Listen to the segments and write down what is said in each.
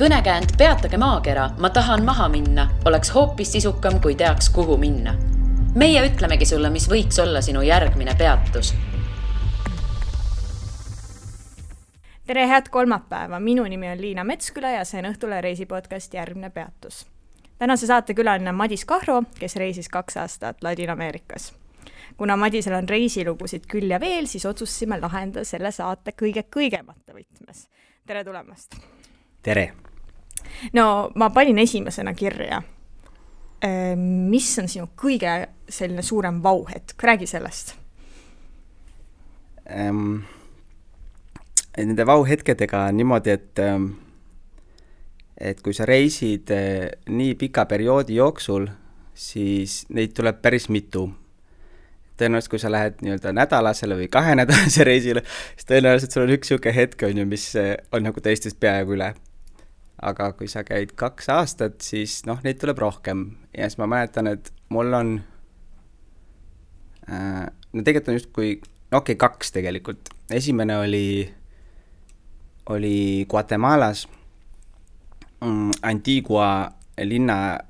Kõnekäänd Peatage maakera, ma tahan maha minna, oleks hoopis sisukam, kui teaks, kuhu minna. Meie ütlemegi sulle, mis võiks olla sinu järgmine peatus. Tere, head kolmapäeva! Minu nimi on Liina Metsküla ja see on Õhtule reisipodcast Järgmine peatus. Tänase saate külaline Madis Kahro, kes reisis 2 aastat Ladina-Ameerikas. Kuna Madisel on reisilugusid küll ja veel, siis otsustasime lahendada selle saate kõige kõigemata võtmes. Tere tulemast! Tere! No, ma panin esimesena kirja. Mis on sinu kõige selline suurem vauhetk? Räägi sellest. Nende vauhetkedega on niimoodi, et kui sa reisid nii pika perioodi jooksul, siis neid tuleb päris mitu. Tõenäoliselt, kui sa lähed nii-öelda nädalasele või 2 nädalase reisile, siis tõenäoliselt sul on üks siuke hetk, mis on nagu teistest peaaegu üle. Aga kui sa käid 2 aastat, siis neid tuleb rohkem. Ja siis ma mäletan, et mul on tegelikult on just kui 2 tegelikult. Esimene oli Guatemalas Antigua linna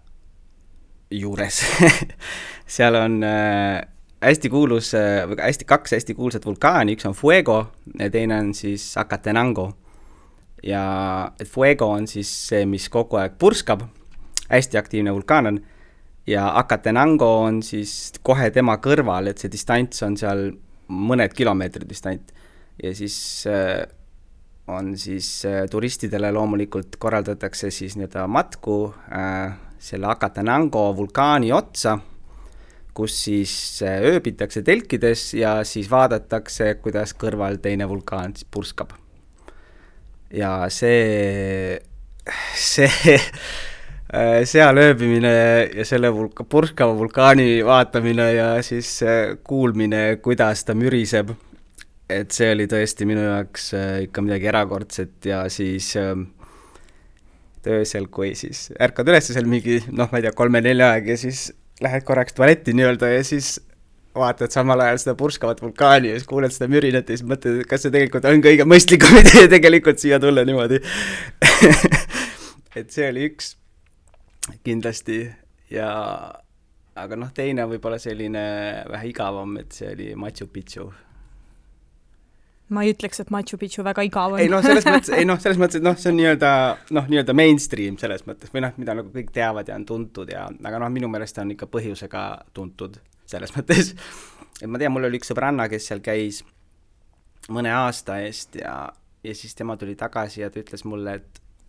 juures. Seal on hästi kuulus, 2 hästi kuulsat vulkaani, üks on Fuego ja teine on siis Acatenango. Ja Fuego on siis see, mis kogu aeg purskab, hästi aktiivne vulkaan on, ja Acatenango on siis kohe tema kõrval, et see distants on seal mõned kilomeetrid distant. Ja siis on siis turistidele loomulikult korraldatakse siis matku selle Acatenango vulkaani otsa, kus siis ööbitakse telkides ja siis vaadatakse, kuidas kõrval teine vulkaan siis purskab. Ja see seal ööbimine ja selle purskava vulkaani vaatamine ja siis kuulmine, kuidas ta müriseb, et see oli tõesti minu jaoks ikka midagi erakordset ja siis öösel, kui siis ärkad üles seal mingi, ma ei tea, 3-4 aeg ja siis lähed korraks tualetti nii-öelda ja siis vaatad samal ajal seda purskavat vulkaani ja siis kuuled seda mürinat ja siis mõtled, kas see tegelikult on kõige mõistlikum idee tegelikult siia tulla niimoodi. Et see oli üks kindlasti ja aga teine võib-olla selline vähe igavam, et see oli Machu Picchu. Ma ei ütleks, et Machu Picchu väga igav on. Selles mõttes, et see on nii-öelda mainstream selles mõttes, või mida nagu kõik teavad ja on tuntud, aga minu meelest on ikka põhjusega tuntud selles mõttes. Et ma tean, mul oli üks sõbranna, kes seal käis mõne aasta eest ja siis tema tuli tagasi ja ta ütles mulle,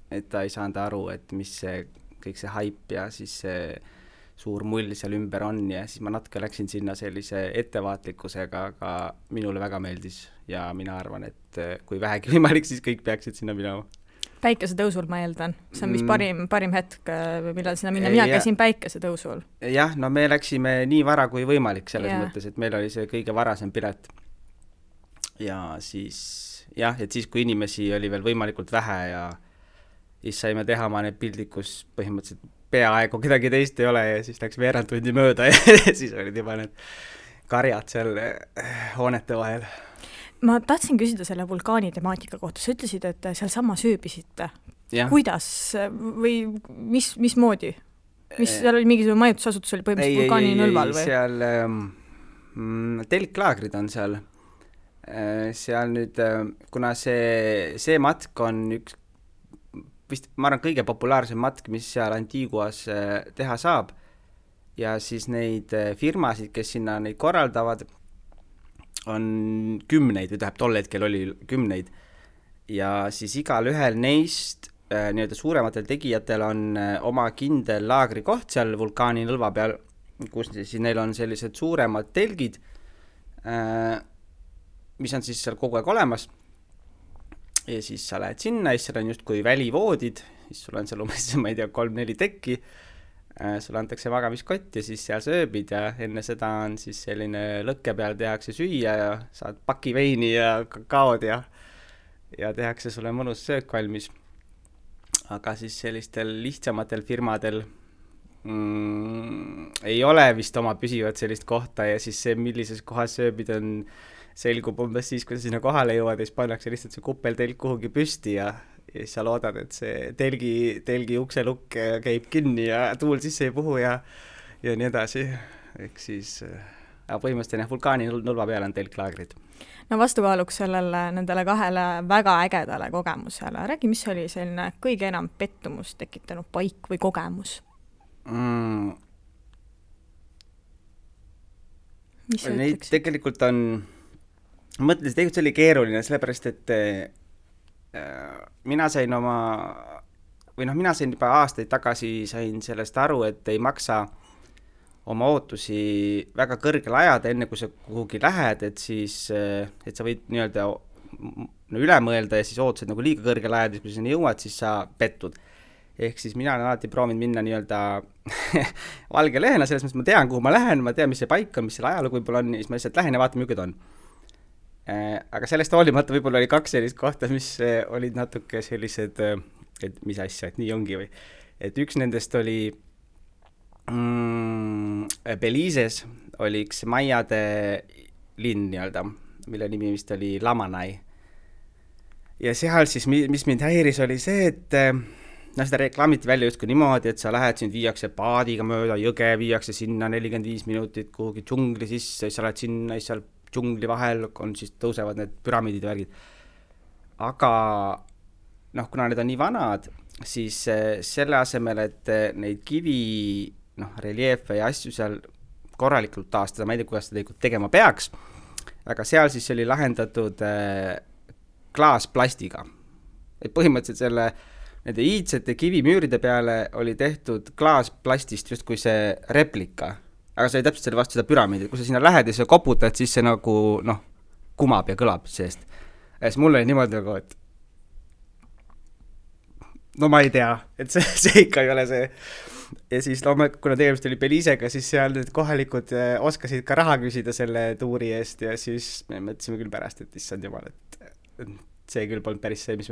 et ta ei saanud aru, et mis see kõik see haip ja siis see suur mull seal ümber on ja siis ma natuke läksin sinna sellise ettevaatlikkusega, aga minule väga meeldis ja mina arvan, et kui vähegi võimalik, siis kõik peaksid sinna minema. Päikesetõusul ma eeldan. See on vist parim hetk, millal sinna minna. Mina käisin päikesetõusul. Jah, me läksime nii vara kui võimalik selles mõttes, et meil oli see kõige varasem pilet. Ja siis, et siis kui inimesi oli veel võimalikult vähe ja siis saime teha oma need pildid, kus põhimõtteliselt peaaegu kedagi teist ei ole ja siis läks veerand tundi mööda ja siis olid juba need karjad seal hoonete vahel. Ma tahtsin küsida selle vulkaani temaatika kohta. Sa ütlesid, et seal sama sööbisite. Ja. Kuidas või mismoodi? Seal oli mingisugune majutusasutus oli põhimõtteliselt vulkaani nõlval või? Seal telklaagrid on seal. Seal nüüd, kuna see matk on üks vist, ma arvan, kõige populaarsem matk, mis seal Antiguas teha saab ja siis neid firmasid, kes sinna neid korraldavad, on 10 või tol hetkel oli 10 ja siis igal ühel neist nii-öelda suurematel tegijatel on oma kindel laagrikoht seal vulkaani nõlva peal, kus siis neil on sellised suuremad telgid, mis on siis seal kogu aeg olemas. Ja siis sa lähed sinna, siis seal on just kui välivoodid, siis sul on seal umbes, ma ei tea, 3-4 tekki, sul antakse magamiskott ja siis seal sööbid ja enne seda on siis selline lõkke peal tehakse süüa ja saad paki veini ja kakaod ja tehakse sulle mõnus söök valmis. Aga siis sellistel lihtsamatel firmadel ei ole vist oma püsivat sellist kohta ja siis see, millises kohas sööbid on selgub umbes siis, kui sa sinna kohale jõuad ja siis pannakse lihtsalt see kuppeltelk kuhugi püsti ja ja siis sa loodad, et see telgi ukselukk käib kinni ja tuul sisse ei puhu ja nii edasi. Ehk siis põhimõtteliselt vulkaani nulva peale on telklaagrid. No vastukaaluks nendele kahele väga ägedale kogemusele. Räägi, mis oli selline kõige enam pettumust tekitanud paik või kogemus? Mis sa neid ütleksid? tegelikult on, mõtlesin, tegelikult see oli keeruline, sellepärast, et mina sain juba aastaid tagasi sain sellest aru, et ei maksa oma ootusi väga kõrgele ajada, enne kui sa kuhugi lähed, et siis, et sa võid nii-öelda üle mõelda ja siis ootused nagu liiga kõrgele ajada, kui sa sinna jõuad, siis sa pettud. Ehk siis mina olen alati proovinud minna nii-öelda valge lehena, selles mõttes ma tean, kuhu ma lähen, ma tean, mis see paik on, mis selle ajalugu võib-olla on, siis ma lihtsalt lähen ja vaatan, milline ta on. Aga sellest hoolimata võib-olla oli 2 sellist kohta, mis olid natuke sellised, et mis asja, et nii ongi või. Et üks nendest oli Belize's oli üks maiade linn nii-öelda, mille nimi vist oli Lamanai. Ja seal siis, mis mind häiris, oli see, et seda reklaamiti välja justkui niimoodi, et sa lähed siin, viiakse paadiga mööda jõge, viiakse sinna 45 minutit kuhugi džungli sisse, siis sa lähed sinna, siis seal džungli vahel on, siis tõusevad need püramiidid ja värgid. Aga kuna need on nii vanad, siis selle asemel, et neid kivi reliefe ja asju seal korralikult taastada, ma ei tea, kuidas seda tegema peaks, aga seal siis oli lahendatud klaasplastiga. Et põhimõtteliselt nende iidsete kivimüüride peale oli tehtud klaasplastist just kui see replika, aga see oli täpselt selle vastu seda püramiidi, kui sa sinna lähed ja sa koputad, siis see nagu kumab ja kõlab seest. Ja siis mul oli niimoodi nagu, et ma ei tea, et see ikka ei ole see. Ja siis kuna tegemist oli Belizega, siis seal need kohalikud oskasid ka raha küsida selle tuuri eest ja siis me mõtlesime küll pärast, et issand jumal, et see küll polnud päris see, mis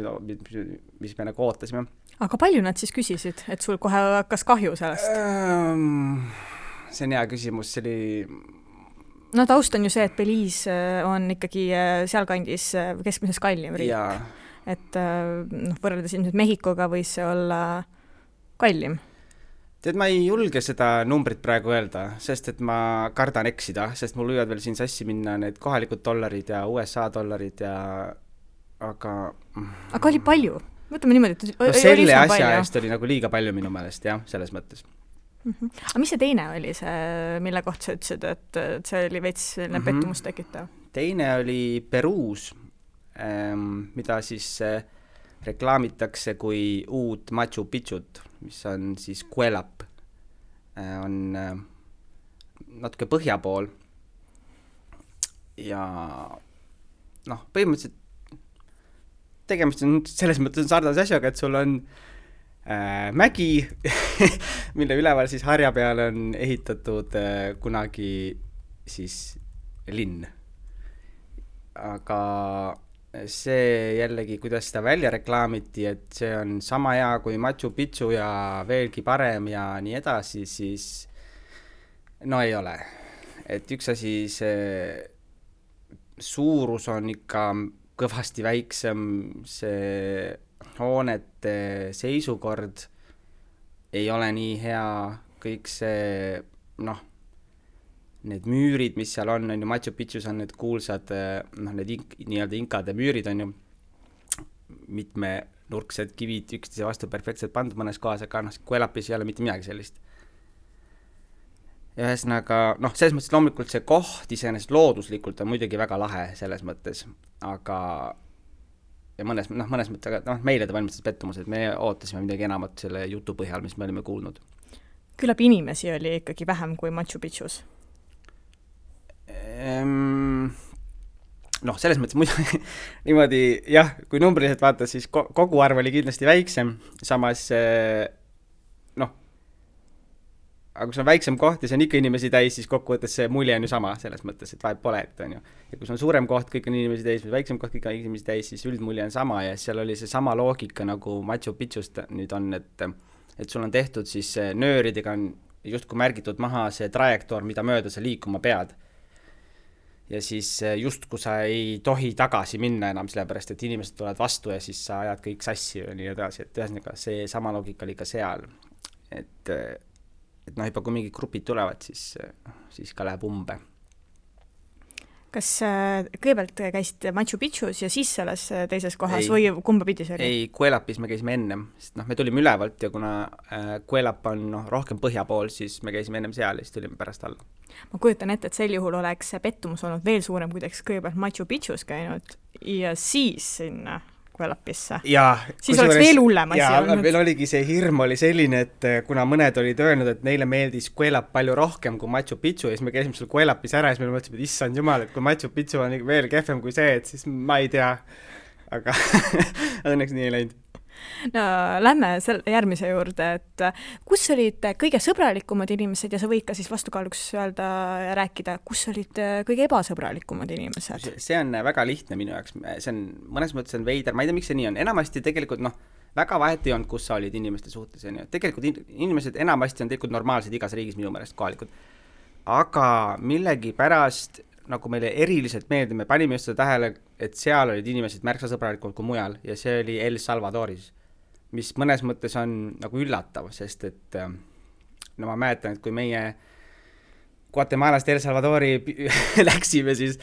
me nagu ootasime. Aga palju nad siis küsisid, et sul kohe hakkas kahju sellest? See on hea küsimus, see oli... No taust on ju see, et Belize on ikkagi sealkandis keskmises kallim riik. Jaa. Et võrreldes ilmselt Mehhikoga võis see olla kallim. Tead, ma ei julge seda numbrit praegu öelda, sest et ma kardan eksida, sest mul võivad veel siin sassi minna need kohalikud dollarid ja USA dollarid ja... Aga oli palju? Võtame niimoodi, et selle asja eest oli nagu liiga palju minu meelest, jah, selles mõttes. Aga mis see teine oli, mille kohta sa ütlesid, et see oli veits pettumust tekitav? Teine oli Peruus, mida siis reklaamitakse kui uut Machu Picchut, mis on siis Cuelap, on natuke põhja pool ja põhimõtteliselt tegemist on selles mõttes sarnase asjaga, et sul on mägi, mille üleval siis harja peale on ehitatud kunagi siis linn. Aga see jällegi, kuidas seda välja reklaamiti, et see on sama hea kui Machu Picchu ja veelgi parem ja nii edasi, siis ei ole. Et üks asi, see suurus on ikka kõvasti väiksem, see hoonete seisukord ei ole nii hea, kõik see, need müürid, mis seal on ju, Machu Picchus on need kuulsad, need nii-öelda inkade müürid on ju mitmenurksed kivid üksteise vastu perfektselt pandud mõnes kohas, aga Cuelapis ei ole mitte midagi sellist. Ja ühesõnaga, selles mõttes loomulikult see koht iseenesest looduslikult on muidugi väga lahe selles mõttes, aga ja mõnes mõttes, aga meile ta valmistas pettumus, et me ootasime midagi enamat selle jutu põhjal, mis me olime kuulnud. Küllap inimesi oli ikkagi vähem kui Machu Picchus? Selles mõttes muidu niimoodi, jah, kui numbriliselt vaata, siis kogu arv oli kindlasti väiksem, samas aga kui see on väiksem koht ja see on ikka inimesi täis, siis kokkuvõttes see mulje on ju sama selles mõttes, et vahet pole, et on ju. Ja kui see on suurem koht, kõik on inimesi täis, või väiksem koht, kõik on inimesi täis, siis üldmulje on sama ja seal oli see sama loogika nagu Machu Picchust nüüd on, et sul on tehtud siis nööridega on justkui märgitud maha see trajektoor, mida mööda sa liikuma pead. ja siis just kui sa ei tohi tagasi minna enam, sellepärast et inimesed tulevad vastu ja siis sa ajad kõik sassi ja nii edasi, et ühesõnaga see sama loogika oli ka seal, et noh, juba kui mingid grupid tulevad, siis ka läheb umbe. Kas kõigepealt käisite Machu Picchus ja siis selles teises kohas Ei. või kumba pidi see oli? Ei, Cuelapis me käisime ennem, sest me tulime ülevalt ja kuna Cuelap on rohkem põhja pool, siis me käisime ennem seal ja siis tulime pärast alla. Ma kujutan ette, et sel juhul oleks pettumus olnud veel suurem, kui teks kõigepealt Machu Picchus käinud ja siis sinna Cuelapisse. Siis oleks veel hullem asi olnud. Meil oligi see hirm oli selline, et kuna mõned olid öelnud, et neile meeldis Cuelap palju rohkem kui Machu Picchu ja siis me käisime seal Cuelapis ära ja siis me mõtlesime, et issand jumal, et kui Machu Picchu on veel kehvem kui see, et siis ma ei tea, aga õnneks nii ei läinud. No lähme järgmise juurde, et kus olid kõige sõbralikumad inimesed ja sa võid ka siis vastukaaluks öelda ja rääkida, kus olid kõige ebasõbralikumad inimesed? See on väga lihtne minu jaoks, see on mõnes mõttes on veider, ma ei tea, miks see nii on, enamasti tegelikult väga vahet ei olnud, kus sa olid inimeste suhtes, tegelikult inimesed enamasti on tegelikult normaalsed igas riigis minu meelest kohalikud, aga millegi pärast nagu meile eriliselt meeldib, me panime just seda tähele, et seal olid inimesed märksa sõbralikult kui mujal ja see oli El Salvadoris, mis mõnes mõttes on nagu üllatav, sest et ma mäletan, et kui meie Guatemalast El Salvadori läksime, siis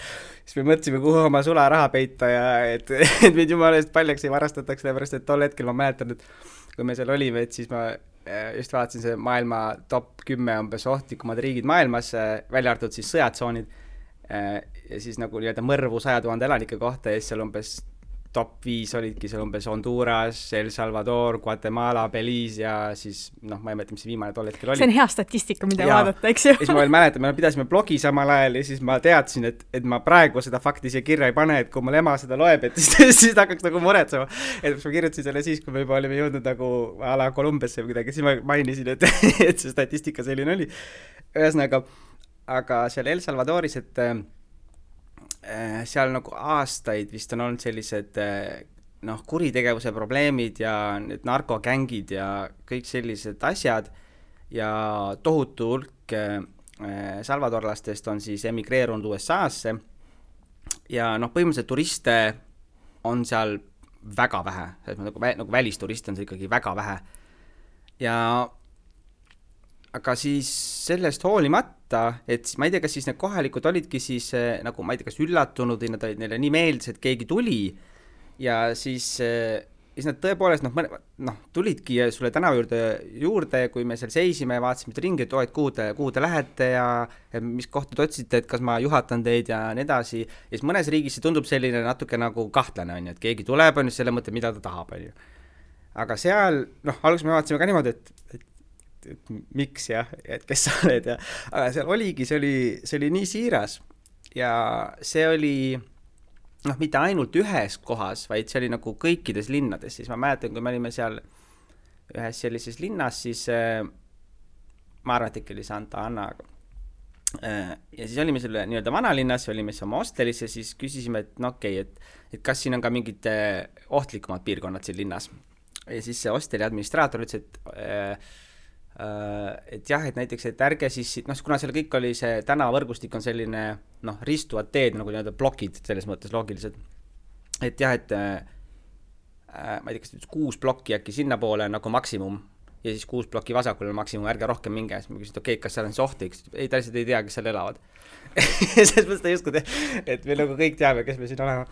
me mõtlesime, kuhu oma sularaha peita ja et meid jumala eest paljaks ei varastataks, sellepärast et tol hetkel ma mäletan, et kui me seal olime, et siis ma just vaatasin see maailma top 10 umbes ohtlikumad riigid maailmas, välja arvatud siis sõjatsoonid ja siis nagu nii-öelda mõrvu 100 000 elanike kohta ja siis seal umbes top 5 olidki seal umbes Honduras, El Salvador, Guatemala, Belize ja siis ma ei mäleta, mis viimane tol hetkel oli. See on hea statistika, mida vaadata, eks ju. Ja siis ma veel mäletan, me pidasime blogi samal ajal ja siis ma teadsin, et ma praegu seda fakti siia kirja ei pane, et kui mul ema seda loeb, et siis ta hakkaks nagu muretsema. Et ma kirjutasin selle siis, kui me juba olime jõudnud nagu a la Kolumbiasse või kuidagi, siis ma mainisin, et see statistika selline oli. Ühesõnaga, aga seal El Salvadoris, et seal nagu aastaid vist on olnud sellised kuritegevuse probleemid ja need narkogängid ja kõik sellised asjad ja tohutu hulk salvadorlastest on siis emigreerunud USA-sse ja põhimõtteliselt turiste on seal väga vähe, nagu välisturiste on see ikkagi väga vähe ja aga siis sellest hoolimata, et ma ei tea, kas siis need kohalikud olidki siis nagu ma ei tea, kas üllatunud või nad olid neile nii meeldis, et keegi tuli ja siis nad tõepoolest tulidki sulle tänava juurde, kui me seal seisime, vaatasime ringi, et kuhu te lähete ja mis kohta te otsite, et kas ma juhatan teid ja nii edasi. Ja siis mõnes riigis see tundub selline natuke nagu kahtlane, on ju, et keegi tuleb, on ju selle mõtte, mida ta tahab, on ju. Aga seal, alguses me vaatasime ka niimoodi, et miks jah, et kes sa oled ja aga seal oligi, see oli nii siiras ja see oli mitte ainult ühes kohas, vaid see oli nagu kõikides linnades, siis ma mäletan, kui me olime seal ühes sellises linnas, siis ma arvan, et ikka oli Santa Ana ja siis olime selle nii-öelda vanalinnas, olime siis oma hostelis ja siis küsisime, et et kas siin on ka mingid ohtlikumad piirkonnad siin linnas ja siis see hosteli administraator ütles, et jah, et näiteks, et ärge siis, kuna seal kõik oli see tänavavõrgustik on selline, ristuvad teed, nagu nii-öelda blokid selles mõttes loogilised, et jah, et ma ei tea, kas 6 blokki äkki sinna poole nagu maksimum ja siis 6 blokki vasakul on maksimum, ärge rohkem minge, siis ma küsin, et kas seal on see ohtlik, ei, ta lihtsalt ei tea, kes seal elavad selles mõttes ta ei usku, et me nagu kõik teame, kes me siin olema.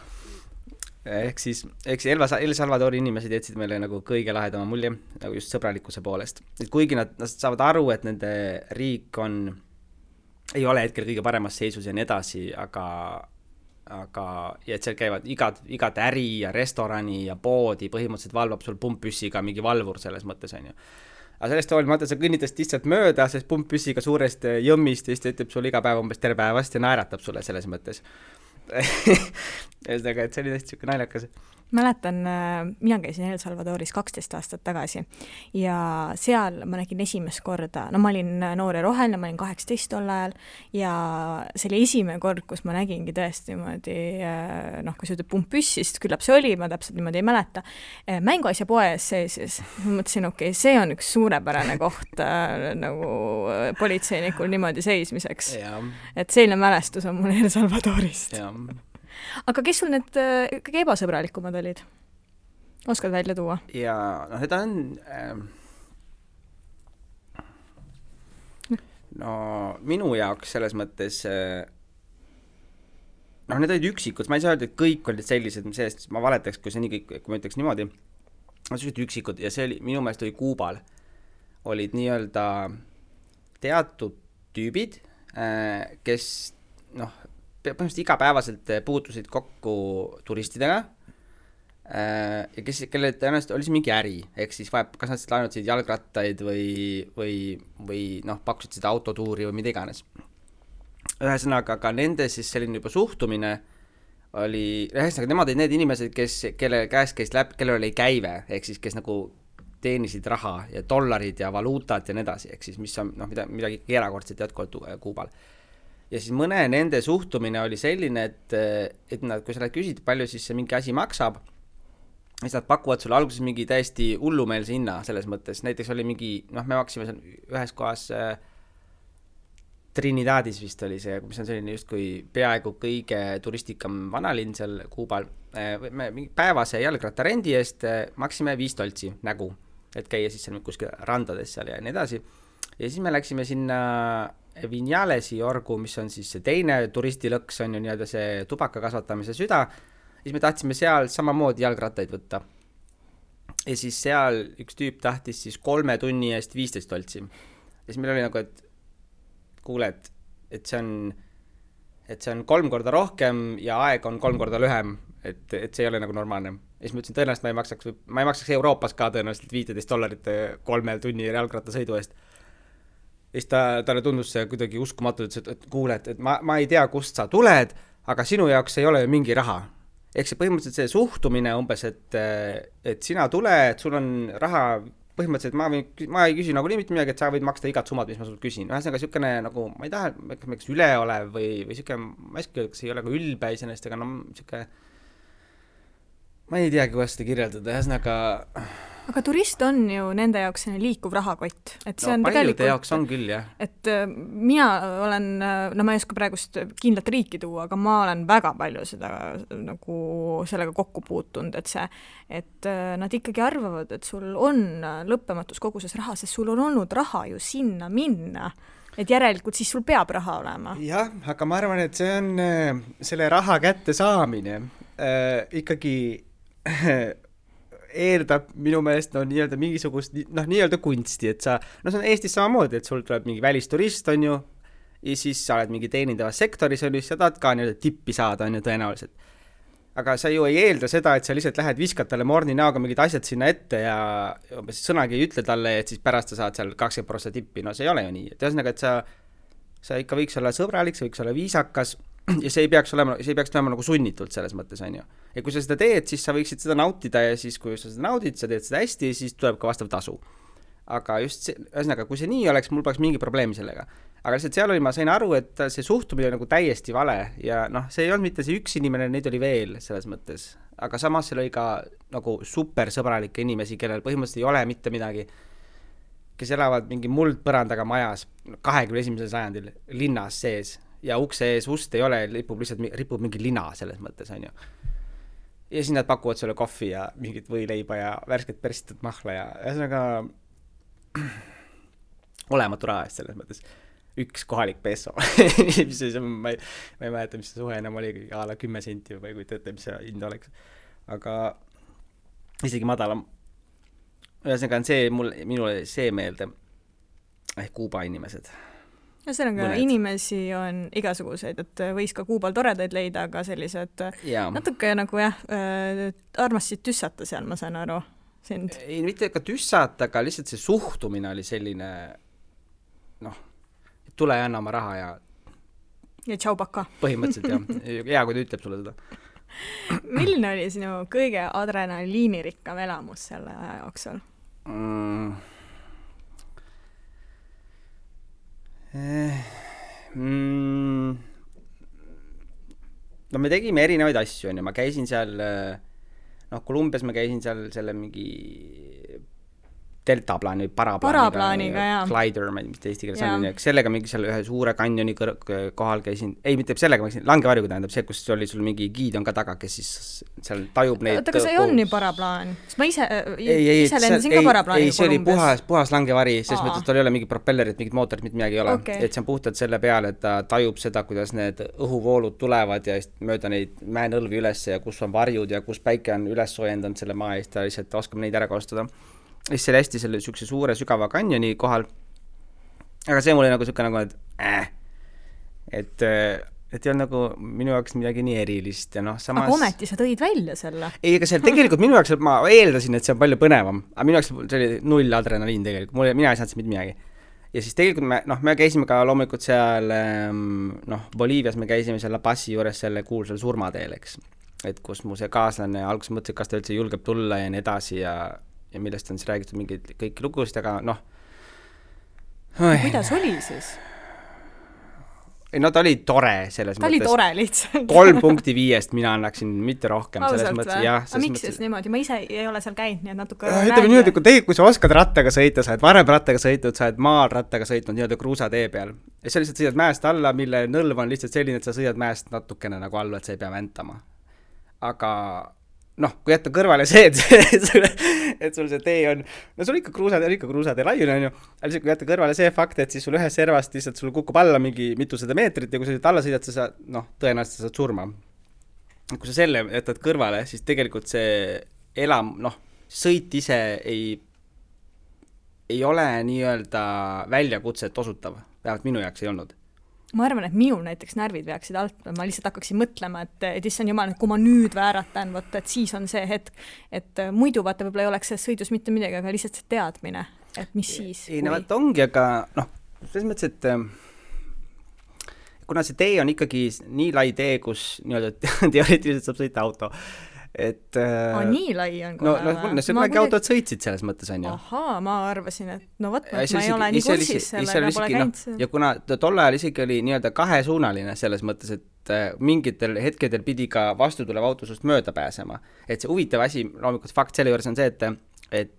Ehk siis El Salvadori inimesed jätsid meile nagu kõige lahedama mulje, nagu just sõbralikkuse poolest. Et kuigi nad saavad aru, et nende riik ei ole hetkel kõige paremas seisus ja nii edasi, aga ja et seal käivad igat äri ja restorani ja poodi põhimõtteliselt valvab sul pumppüssiga mingi valvur selles mõttes, on ju. Aga sellest hoolimata sa kõnnitast lihtsalt mööda, sest pumppüssiga suurest jõmmist ja siis ütleb sulle iga päev umbes tere päevast ja naeratab sulle selles mõttes. Ühesõnaga, et see oli tõesti siuke naljakas. mäletan, mina käisin El Salvadoris 12 aastat tagasi ja seal ma nägin esimest korda, no ma olin noor ja roheline, ma olin 18 tol ajal ja see oli esimene kord, kus ma nägingi tõesti niimoodi, kui sa ütled pumppüssist, küllap see oli, ma täpselt niimoodi ei mäleta, mänguasja poe ees seisis. Ma mõtlesin, okei, see on üks suurepärane koht nagu politseinikul niimoodi seismiseks. Et selline mälestus on mul El Salvadorist. Aga kes sul need kõige ebasõbralikumad olid? Oskad välja tuua? Ja seda on minu jaoks selles mõttes need olid üksikud, ma ei saa öelda, et kõik olid sellised, sellest ma valetaks, kui see nii kõik, kui ma ütleks niimoodi, sellised üksikud ja see oli, minu meelest oli Kuubal, olid nii-öelda teatud tüübid, kes põhimõtteliselt igapäevaselt puutusid kokku turistidega ja kelle tõenäoliselt oli see mingi äri, ehk siis kas nad laenutasid jalgrattaid või pakkusid seda autotuuri või mida iganes. Ühesõnaga, aga nende siis selline juba suhtumine oli, nemad olid need inimesed, kelle käes käis läbi, kellel oli käive, ehk siis kes nagu teenisid raha ja dollarid ja valuutad ja nii edasi, ehk siis mis on midagi erakordset jätkuvalt Kuubal. Ja siis mõne nende suhtumine oli selline, et nad, kui sa küsid, palju siis see mingi asi maksab, siis nad pakuvad sulle alguses mingi täiesti hullumeelse hinna selles mõttes. Näiteks oli mingi, me maksime seal ühes kohas Trinidadis vist oli see, mis on selline justkui peaaegu kõige turistikam vanalinn seal Kuubal. Päevase jalgrattarendi eest maksime $5 nägu, et käia siis seal kuskil randades seal ja nii edasi. Ja siis me läksime sinna Vinjalesi orgu, mis on siis see teine turistilõks, on ju nii-öelda see tubaka kasvatamise süda, siis me tahtsime seal samamoodi jalgrattaid võtta. Ja siis seal üks tüüp tahtis siis 3 tunni eest $15. Ja siis meil oli nagu, et kuule, et see on 3 korda rohkem ja aeg on 3 korda lühem, et see ei ole nagu normaalne. Ja siis ma ütlesin, tõenäoliselt ma ei maksaks Euroopas ka tõenäoliselt $15 3 tunni jalgrattasõidu eest. Ja siis talle tundus see kuidagi uskumatu, et kuule, et ma ei tea, kust sa tuled, aga sinu jaoks ei ole ju mingi raha. Ehk see põhimõtteliselt see suhtumine umbes, et sina tuled, sul on raha, põhimõtteliselt ma ei küsi nagu nii mitte midagi, et sa võid maksta igat summad, mis ma sult küsin. Ühesõnaga siukene nagu, ma ei taha, kas üleolev või siukene, ma ei saa, kas ei ole ka ülbe iseenesest, aga siuke, ma ei teagi, kuidas seda kirjeldada, ühesõnaga. Aga turist on ju nende jaoks liikuv rahakott. Et see on paljude jaoks on küll, jah. Et mina olen, ma ei oska praegust kindlat riiki tuua, aga ma olen väga palju seda nagu sellega kokku puutunud, et nad ikkagi arvavad, et sul on lõppematus koguses raha, sest sul on olnud raha ju sinna minna. Et järelikult siis sul peab raha olema. Jah, aga ma arvan, et see on selle raha kätte saamine ikkagi eeldab minu meelest nii-öelda mingisugust nii-öelda kunsti, et sa, see on Eestis samamoodi, et sul tuleb mingi välisturist, on ju, ja siis sa oled mingi teenindavas sektoris, on ju, sa tahad ka nii-öelda tippi saada, on ju, tõenäoliselt. Aga sa ju ei eelda seda, et sa lihtsalt lähed viskad talle morni näoga mingid asjad sinna ette ja sõnagi ei ütle talle, et siis pärast sa saad seal 20% tippi, see ei ole ju nii. Et ühesõnaga, et sa ikka võiks olla sõbralik, sa võiks olla viisakas ja see ei peaks olema nagu sunnitult selles mõttes, on ju. Ja kui sa seda teed, siis sa võiksid seda nautida ja siis, kui sa seda naudid, sa teed seda hästi, siis tuleb ka vastav tasu. Aga just see, ühesõnaga, kui see nii oleks, mul poleks mingi probleemi sellega. Aga lihtsalt seal oli, ma sain aru, et see suhtumine nagu täiesti vale ja see ei olnud mitte see üks inimene, neid oli veel selles mõttes. Aga samas seal oli ka nagu super sõbralikke inimesi, kellel põhimõtteliselt ei ole mitte midagi, kes elavad mingi muldpõrandaga majas 21. sajandil linnas sees ja ukse ees ust ei ole, ripub mingi lina selles mõttes, on ju. Ja siis nad pakuvad sulle kohvi ja mingit võileiba ja värsket persitud mahla ja ühesõnaga olematu raha eest selles mõttes. Üks kohalik peso. ma ei mäleta, mis see suhe enam oli, a la 10 senti või kui teate, mis see hind oleks. Aga isegi madalam. Ühesõnaga on see, minule see meelde Kuuba inimesed. Ühesõnaga, inimesi on igasuguseid, et võis ka Kuubal toredaid leida, aga sellised natuke nagu armasid tüssata seal, ma saan aru sind. Ei, mitte ka tüssata, aga lihtsalt see suhtumine oli selline, tule ja anna oma raha ja tšau paka. Põhimõtteliselt, jah. Hea, kui ta ütleb sulle seda. Milline oli sinu kõige adrenaliinirikkam elamus selle aja jooksul? No me tegime erinevaid asju, on ju, ma käisin seal, Kolumbias ma käisin seal selle mingi deltaplaani, paraplaaniga, glider, ma ei tea, mis ta eesti keeles on, sellega mingi seal ühe suure kanjoni kohal käisin, ei, mitte sellega, ma käisin, langevarjuga tähendab see, kus oli sul mingi giid on ka taga, kes siis seal tajub neid. Oota, kas see on nii paraplaan? Sest ma ise lendasin ka paraplaaniga Kolumbias. Ei, see oli puhas langevari, sest mõttes tal ei ole mingi propellerit, mingid mootorid, mitte midagi ei ole. Et see on puhtalt selle peale, et ta tajub seda, kuidas need õhuvoolud tulevad ja mööda neid mäenõlvi üles ja kus on varjud ja kus päike on üles soojendanud selle maa eest ja lihtsalt oskab neid ära kasutada. Siis see oli hästi selle sükse suure sügava kanjoni kohal. Aga see mul oli nagu sükke nagu, et ei olnud nagu minu jaoks midagi nii erilist. Ja samas... Aga ometi sa tõid välja selle? Ei, aga seal tegelikult minu jaoks, ma eeldasin, et see on palju põnevam. Aga minu jaoks see oli 0 adrenaliin tegelikult. Mina ei saanud mitte midagi. Ja siis tegelikult me käisime ka loomulikult seal, Boliivias me käisime seal La Pazi juures selle kuulsal surmateel, eks. Et kus mu see kaaslane alguses mõtles, kas ta üldse julgeb tulla ja nii edasi ja millest on siis räägitud mingeid kõiki lugusid, aga Kuidas oli siis? Ta oli tore selles mõttes. Ta oli tore lihtsalt. 3.5 mina annaksin, mitte rohkem. Ausalt või? Aga miks siis niimoodi? Ma ise ei ole seal käinud, nii et natuke ütleme niimoodi, kui sa oskad rattaga sõita, sa oled varem rattaga sõitnud, sa oled maal rattaga sõitnud nii-öelda kruusatee peal. Ja sa lihtsalt sõidad mäest alla, mille nõlv on lihtsalt selline, et sa sõidad mäest natukene nagu alla, et sa ei pea väntama. Aga kui jätta kõrvale see, et sul see tee on, sul ikka kruusatee laiune on ju, aga lihtsalt kui jätta kõrvale see fakt, et siis sul ühes servast lihtsalt sul kukub alla mingi mitusada meetrit ja kui sa alla sõidad, sa saad, tõenäoliselt sa saad surma. Kui sa selle jätad kõrvale, siis tegelikult see sõit ise ei ole nii-öelda väljakutset osutav, vähemalt minu jaoks ei olnud. Ma arvan, et minul näiteks närvid peaksid alt, ma lihtsalt hakkaksin mõtlema, et issand jumal, kui ma nüüd vääratan, et siis on see hetk, et muidu vaata võib-olla ei oleks see sõidus mitte midagi, aga lihtsalt see teadmine, et mis siis. Ei, ongi, aga selles mõttes, et kuna see tee on ikkagi nii lai tee, kus teoreetiliselt saab sõita auto, et nii lai on kohe see kunagi autod sõitsid selles mõttes on ju. Ahaa, ma arvasin, et ma ei ole nii kursis sellega, pole käinud. Ja kuna tol ajal isegi oli nii-öelda kahesuunaline selles mõttes, et mingitel hetkedel pidi ka vastutulev auto sust mööda pääsema. Et see huvitav asi, loomulikult fakt selle juures on see, et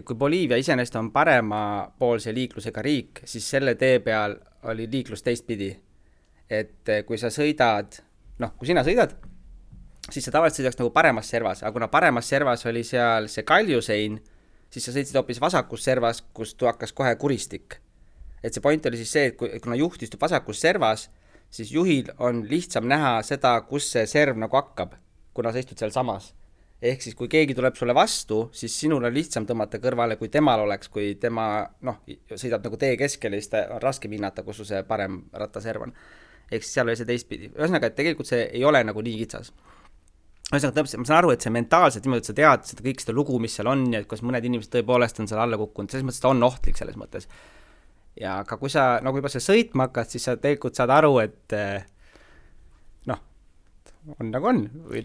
kui Boliivia iseenesest on paremapoolse liiklusega riik, siis selle tee peal oli liiklus teistpidi. Et kui sa sõidad kui sina sõidad, siis sa tavaliselt sõidaks nagu paremas servas, aga kuna paremas servas oli seal see kaljusein, siis sa sõitsid hoopis vasakus servas, kus hakkas kohe kuristik. Et see point oli siis see, et kuna juht istub vasakus servas, siis juhil on lihtsam näha seda, kus see serv nagu hakkab, kuna sa istud seal samas. Ehk siis, kui keegi tuleb sulle vastu, siis sinul on lihtsam tõmmata kõrvale, kui temal oleks, kui tema sõidab nagu tee keskele, siis ta on raske hinnata, kus see parem rattaserv on. Ehk siis seal oli see teistpidi. Ühesõnaga, et tegelikult see ei ole nagu nii kitsas. Ühesõnaga, ma saan aru, et see mentaalselt niimoodi, et sa tead seda kõik seda lugu, mis seal on ja kus mõned inimesed tõepoolest on seal alla kukkunud, selles mõttes ta on ohtlik selles mõttes. Ja aga kui sa nagu juba see sõitma hakkad, siis sa tegelikult saad aru, et on nagu on või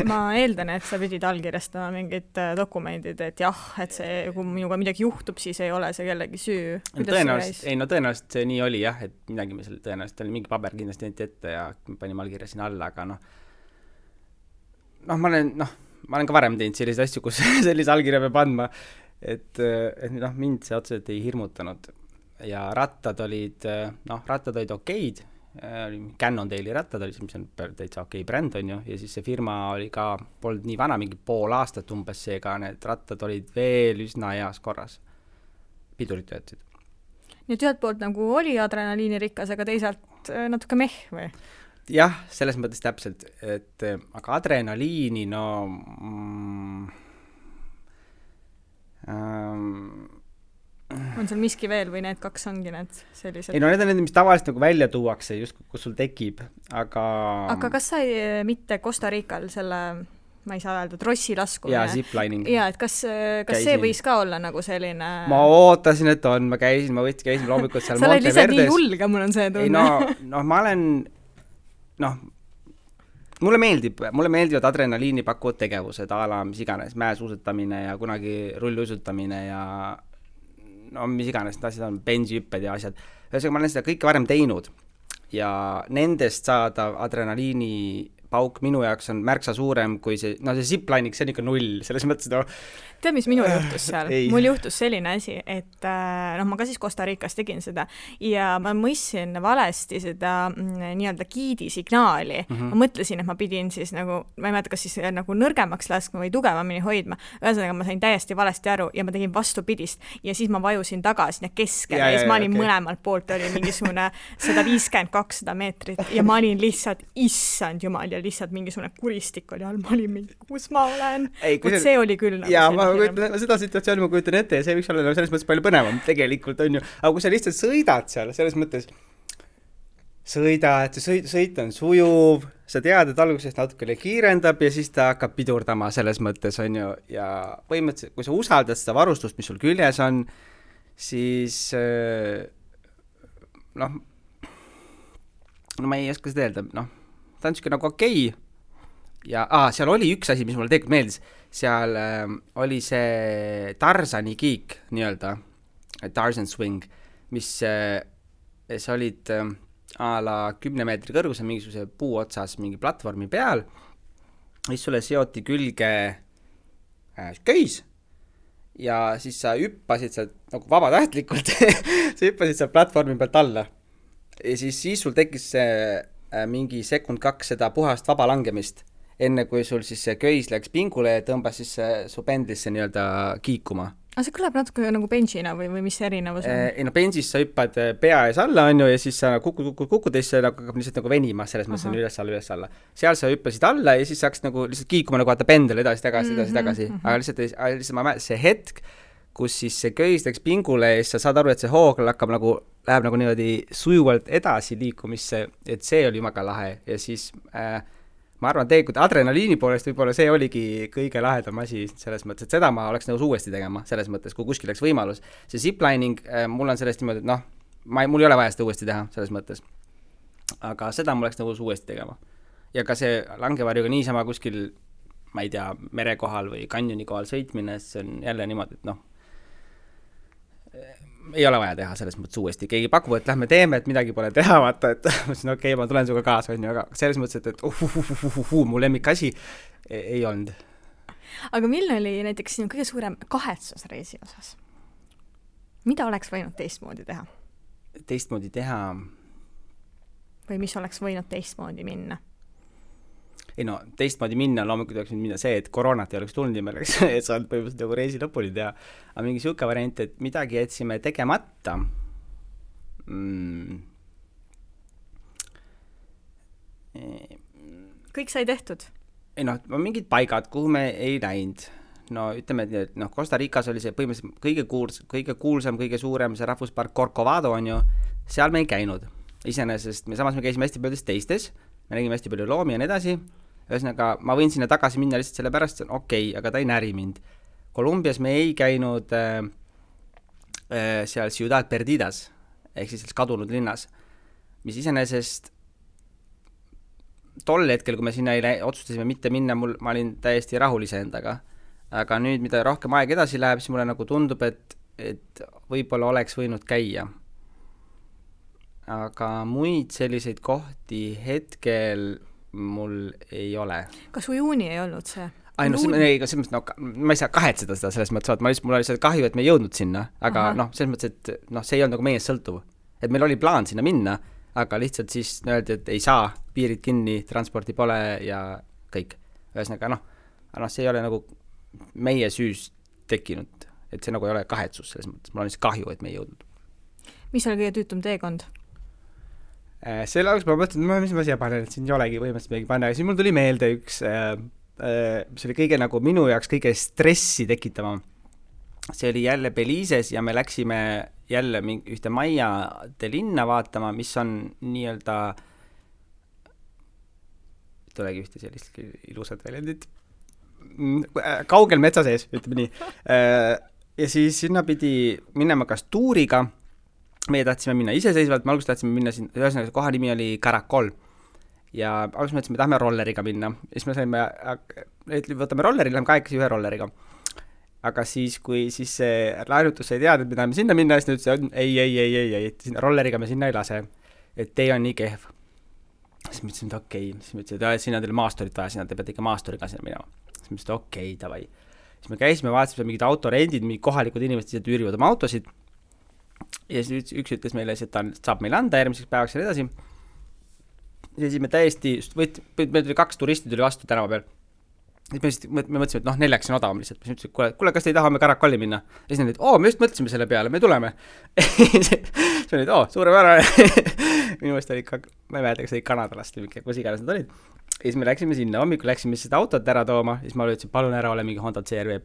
Ma eeldan, et sa pidid allkirjastama mingid dokumendid, et jah, et see, kui minuga midagi juhtub, siis ei ole see kellegi süü. Tõenäoliselt see nii oli jah, et midagi me tõenäoliselt oli mingi paber kindlasti ette ja panime allkirja sinna alla, aga ma olen ka varem teinud selliseid asju, kus sellise allkirja peab andma, et mind see otseselt ei hirmutanud ja rattad olid okeid. Cannondale'i rattad oli, mis on täitsa okei bränd on ju, ja siis see firma oli ka, polnud nii vana, mingi pool aastat umbes seega, need rattad olid veel üsna heas korras. Pidurid töötasid. Nii et ühelt poolt nagu oli adrenaliini rikas, aga teisalt natuke meh või? Jah, selles mõttes täpselt, et aga adrenaliini, on seal miski veel või need kaks ongi need sellised? Ei, need on need, mis tavaliselt nagu välja tuuakse, just kus sul tekib, aga... Aga kas sa mitte Costa Rical selle, ma ei saa öelda, trossi laskumine? Jaa, ziplining. Jaa, et kas see võis ka olla nagu selline... Ma ootasin, et on, ma käisin loomulikult seal sa oled lihtsalt nii julge, mul on see tunne. Ei, ma olen... noh, mulle meeldivad adrenaliini pakkuvad tegevused, a la mis iganes, mäesuusatamine ja kunagi rulluisutamine ja no mis iganes, need asjad on bensihüpped ja asjad. Ühesõnaga, ma olen seda kõike varem teinud ja nendest saada adrenaliini pauk minu jaoks on märksa suurem kui see, no see ziplining, see on ikka 0, selles mõttes, no tead, mis minul juhtus seal? Mul juhtus selline asi, et ma ka siis Costa Ricas tegin seda ja ma mõistsin valesti seda nii-öelda giidi signaali. Ma mõtlesin, et ma pidin siis nagu, ma ei mäleta, kas siis nagu nõrgemaks laskma või tugevamini hoidma. Ühesõnaga, ma sain täiesti valesti aru ja ma tegin vastupidist ja siis ma vajusin tagasi sinna keskele ja siis ma olin mõlemalt poolt, oli mingisugune 150-200 meetrit ja ma olin lihtsalt, issand jumal, ja lihtsalt mingisugune kuristik oli all, ma olin mingi, kus ma olen. See oli küll nagu ja seda situatsiooni ma kujutan ette ja see võiks olla selles mõttes palju põnevam tegelikult on ju, aga kui sa lihtsalt sõidad seal, selles mõttes sõit on sujuv, sa tead, et alguses natukene kiirendab ja siis ta hakkab pidurdama selles mõttes on ju ja põhimõtteliselt, kui sa usaldad seda varustust, mis sul küljes on, siis noh, ma ei oska seda öelda, noh, ta on niisugune nagu okei. Ja seal oli üks asi, mis mulle tegelikult meeldis, seal oli see Tarzani kiik nii-öelda, Tarzan swing, mis sa olid a la 10 meetri kõrgusel mingisuguse puu otsas mingi platvormi peal, siis sulle seoti külge köis ja siis sa hüppasid sealt nagu vabatahtlikult, sa hüppasid sealt platvormi pealt alla ja siis sul tekkis mingi sekund 2 seda puhast vaba langemist, enne kui sul siis see köis läks pingule ja tõmbas siis su pendlisse nii-öelda kiikuma. Aga see kõlab natuke nagu benchina või mis erinevus on? Ei no benchis sa hüppad pea ees alla on ju ja siis sa kukud ja siis hakkab lihtsalt nagu venima, selles mõttes on üles alla. Seal sa hüppasid alla ja siis saaks nagu lihtsalt kiikuma nagu vaata pendel edasi. Aga lihtsalt see hetk, kus siis see köis läks pingule ja siis sa saad aru, et see hoog läheb nagu niimoodi sujuvalt edasi liikumisse, et see oli jumaga lahe ja siis ma arvan, tegelikult adrenaliini poolest võib-olla see oligi kõige lahedam asi selles mõttes, et seda ma oleks nõus uuesti tegema selles mõttes, kui kuskil läks võimalus. See ziplining, mul on sellest niimoodi, et noh, mul ei ole vaja seda uuesti teha selles mõttes. Aga seda ma oleks nõus uuesti tegema. Ja ka see langevarjuga niisama kuskil, ma ei tea, merekohal või kanjoni kohal sõitmine, see on jälle niimoodi, et noh, ei ole vaja teha selles mõttes uuesti. Keegi pakub, et lähme teeme, et midagi pole teha, vaata, et okei, ma tulen suga kaasa, on ju, aga selles mõttes, et mu lemmik asi ei olnud. Aga milline oli näiteks sinu kõige suurem kahetsus reisi osas? Mida oleks võinud teistmoodi teha? Teistmoodi teha? Või mis oleks võinud teistmoodi minna? Ei no, teistmoodi minna, loomulikult oleks minna see, et koroonat ei oleks tulnud ja me oleks saanud põhimõtteliselt nagu reisi lõpuni teha. Aga mingi siuke variant, et midagi jätsime tegemata. Kõik sai tehtud? Ei no, mingid paigad, kuhu me ei läinud. No ütleme, et noh, Costa Ricas oli see põhimõtteliselt kõige kuulsam, kõige suurem see rahvuspark Corcovado on ju, seal me ei käinud. Iseenesest samas me käisime hästi paljudes teistes, me nägime hästi palju loomi ja nii edasi. Ühesõnaga, ma võin sinna tagasi minna lihtsalt selle pärast, see on okei, aga ta ei näri mind. Kolumbias me ei käinud seal Ciudad Perdidas, ehk siis kadunud linnas, mis iseenesest tol hetkel, kui me sinna otsustasime mitte minna, ma olin täiesti rahulise endaga. Aga nüüd, mida rohkem aeg edasi läheb, siis mulle nagu tundub, et võib-olla oleks võinud käia. Aga muid selliseid kohti hetkel mul ei ole. Kas ujuuni ei olnud see? Ma ei saa kahetseda seda selles mõttes, mul oli lihtsalt kahju, et me ei jõudnud sinna, aga selles mõttes, et see ei olnud nagu meest sõltuv. Et meil oli plaan sinna minna, aga lihtsalt siis öeldi, et ei saa, piirid kinni, transporti pole ja kõik. Ühesõnaga, see ei ole nagu meie süüst tekkinud, et see nagu ei ole kahetsus selles mõttes, mul on lihtsalt kahju, et me ei jõudnud. Mis oli kõige tüütum teekond? Selle alguses ma mõtlesin, mis ma siia panen, et siin ei olegi põhimõtteliselt midagi panna, aga siis mul tuli meelde üks, mis oli kõige nagu minu jaoks kõige stressi tekitama. See oli jälle Belize's ja me läksime jälle ühte Maiade linna vaatama, mis on nii-öelda, tulegi ühte sellist ilusat väljendit, kaugel metsa sees, ütleme nii. Ja siis sinna pidi minema kas tuuriga, meie tahtsime minna iseseisvalt, me alguses tahtsime minna siin, ühesõnaga koha nimi oli Caracol. ja alguses mõtlesime, me tahame rolleriga minna. Ja siis me saime, võtame rolleri, läheme kahekesi ühe rolleriga. Aga siis, kui siis see laenutus sai teada, et me tahame sinna minna, siis ta ütles, ei, rolleriga me sinna ei lase, et tee on nii kehv. Siis me ütlesin, et okei. Siis me ütlesin, et sinna teile maastorit vaja, sinna te peate ikka maastoriga sinna minema. Siis me ütlesin, et okei, davai. Siis me käisime, vaatasime mingid autorendid, mingi kohalikud inimesed ise tüürivad oma autosid. Ja siis üks ütles meile, et ta saab meile anda järgmiseks päevaks ja edasi. Ja siis me täiesti, me 2 turisti tuli vastu tänava peal. Siis me mõtlesime, et 4 on odavam lihtsalt. Siis ütlesin, et kuule, kas te ei taha me Caracolli minna? Ja siis nad olid, me just mõtlesime selle peale, me tuleme. Siis olid, suurepärane. Minu mõelest oli ka, ma ei mäleta, kas oli Kanadalast või kus iganes nad olid. Ja siis me läksime sinna, hommikul läksime seda autot ära tooma, siis ma ütlesin, palun ära ole mingi Honda CR-V,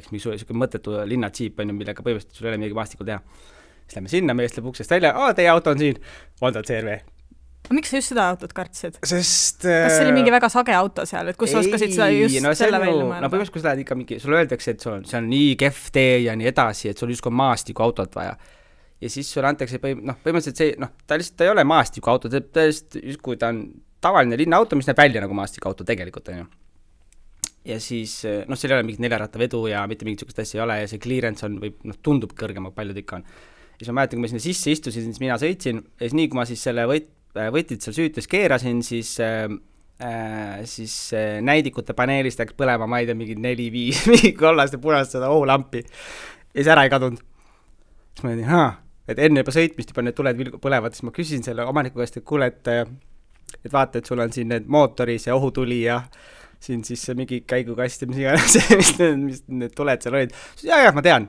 eks mingi mõttetu linnatsiip on ju, millega põhimõtteliselt sul ei ole midagi maastikul teha. Siis lähme sinna, meest läheb uksest välja, teie auto on siin, Honda CR-V. Miks sa just seda autot kartsid? Sest... Kas see oli mingi väga sage auto seal, et kus sa oskasid seda just selle välja mõelda? No põhimõtteliselt, kui sa lähed ikka mingi, sulle öeldakse, et see on nii kehv tee ja nii edasi, et sul justkui maastiku autot vaja. Ja siis sulle antakse, põhimõtteliselt see, ta lihtsalt ei ole maastiku auto, justkui ta on tavaline linnaauto, mis näeb välja nagu maastiku auto tegelikult, on ju. Ja siis, seal ei ole mingit 4-ratta vedu ja mitte mingit sükest asja ei ole ja see clearance on, tundub kõrgem, paljud ikka on. Ja siis ma mäletan, kui ma sinna sisse istusin, siis mina sõitsin ja siis nii, kui ma siis selle võtid seal süütes keerasin, siis näidikute paneelist läks põlema, ma ei tea, mingi 4-5 mingi kollast ja punast seda ohulampi ja siis ära ei kadunud. Siis ma ütlesin, et enne juba sõitmist juba need tuled põlevad, siis ma küsin selle omaniku käest, et kuule, et vaata, et sul on siin need mootoris ja ohutuli ja siin siis mingi käigukast ja mis iganes, mis need tuled seal olid. Ja, ma tean,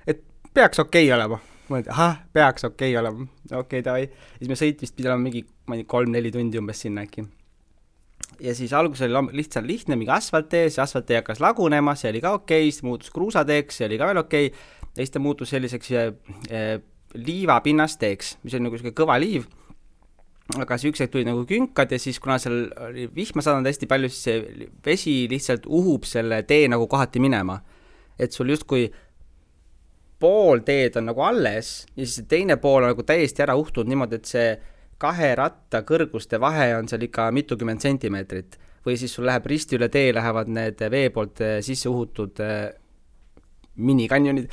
et peaks okei olema. Ma mõtlen, peaks okei olema. Okei, davai. Siis me sõitmist pidi olema mingi 3-4 tundi umbes sinna äkki. Ja siis alguses oli lihtsalt lihtne, mingi asfalttee, see asfalttee hakkas lagunema, see oli ka okei, siis muutus kruusateeks, see oli ka veel okei. Ja siis ta muutus selliseks liivapinnasteeks, mis oli nagu selline kõva liiv. Aga see üks hetk tuli nagu künkad ja siis kuna seal oli vihma saanud hästi palju, siis see vesi lihtsalt uhub selle tee nagu kohati minema. Et sul justkui pool teed on nagu alles ja siis teine pool on nagu täiesti ära uhtunud niimoodi, et see 2 ratta kõrguste vahe on seal ikka mitukümmend sentimeetrit. Või siis sul läheb risti üle tee, lähevad need vee poolt sisse uhutud minikanjonid.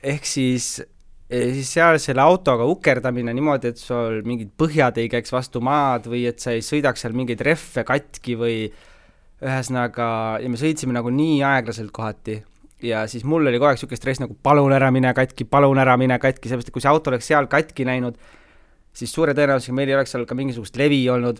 Ehk siis seal selle autoga ukerdamine niimoodi, et sul mingid põhjad ei käiks vastu maad või et sa ei sõidaks seal mingeid reffe katki või ühesõnaga, ja me sõitsime nagu nii aeglaselt kohati. Ja siis mul oli kogu aeg siuke stress nagu palun ära mine katki, sellepärast, et kui see auto oleks seal katki näinud, siis suure tõenäosusega meil ei oleks seal ka mingisugust levi olnud.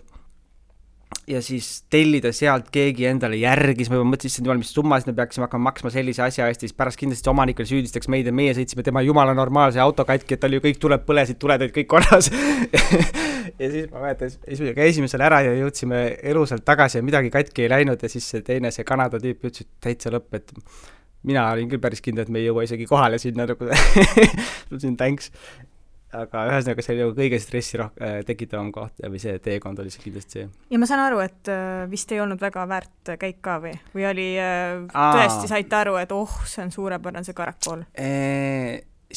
Ja siis tellida sealt keegi endale järgi, siis ma juba mõtlesin, mis summasid me peaksime hakkama maksma sellise asja eest, siis pärast kindlasti omanikul süüdistaks meid ja meie sõitsime tema jumala normaalse auto katki, et tal ju kõik tuleb põlesid, tuled olid kõik korras. Ja siis ma mäletan, siis me käisime seal ära ja jõudsime elusalt tagasi ja midagi katki ei läinud ja siis see teine, see Kanada tüüp ütles, et täitsa lõpp, et mina olin küll päris kindel, et me ei jõua isegi kohale sinna nagu ütlesin thanks. Aga ühesõnaga see oli nagu kõige stressi tekitavam koht või see teekond oli see kindlasti see. Ja ma saan aru, et vist ei olnud väga väärt käik ka või oli tõesti saite aru, et see on suurepärane see Caracol?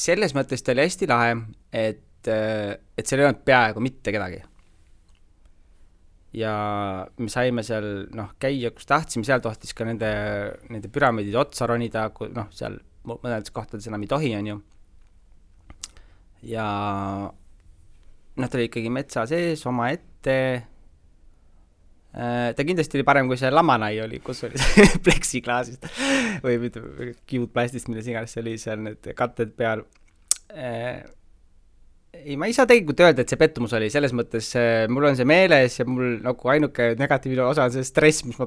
Selles mõttes ta oli hästi lahe, et seal ei olnud peaaegu mitte kedagi. Ja me saime seal käia, kus tahtsime, seal tohtis ka nende püramiidide otsa ronida, seal mõnedes kohtades enam ei tohi, on ju. Ja ta oli ikkagi metsa sees, oma ette. Ta kindlasti oli parem, kui see Lamanai oli, kus oli see pleksiklaasist või kiudplastist, milles iganes see oli seal need katted peal. Ei, ma ei saa tegelikult öelda, et see pettumus oli, selles mõttes mul on see meeles ja mul nagu ainuke negatiivne osa on see stress, mis ma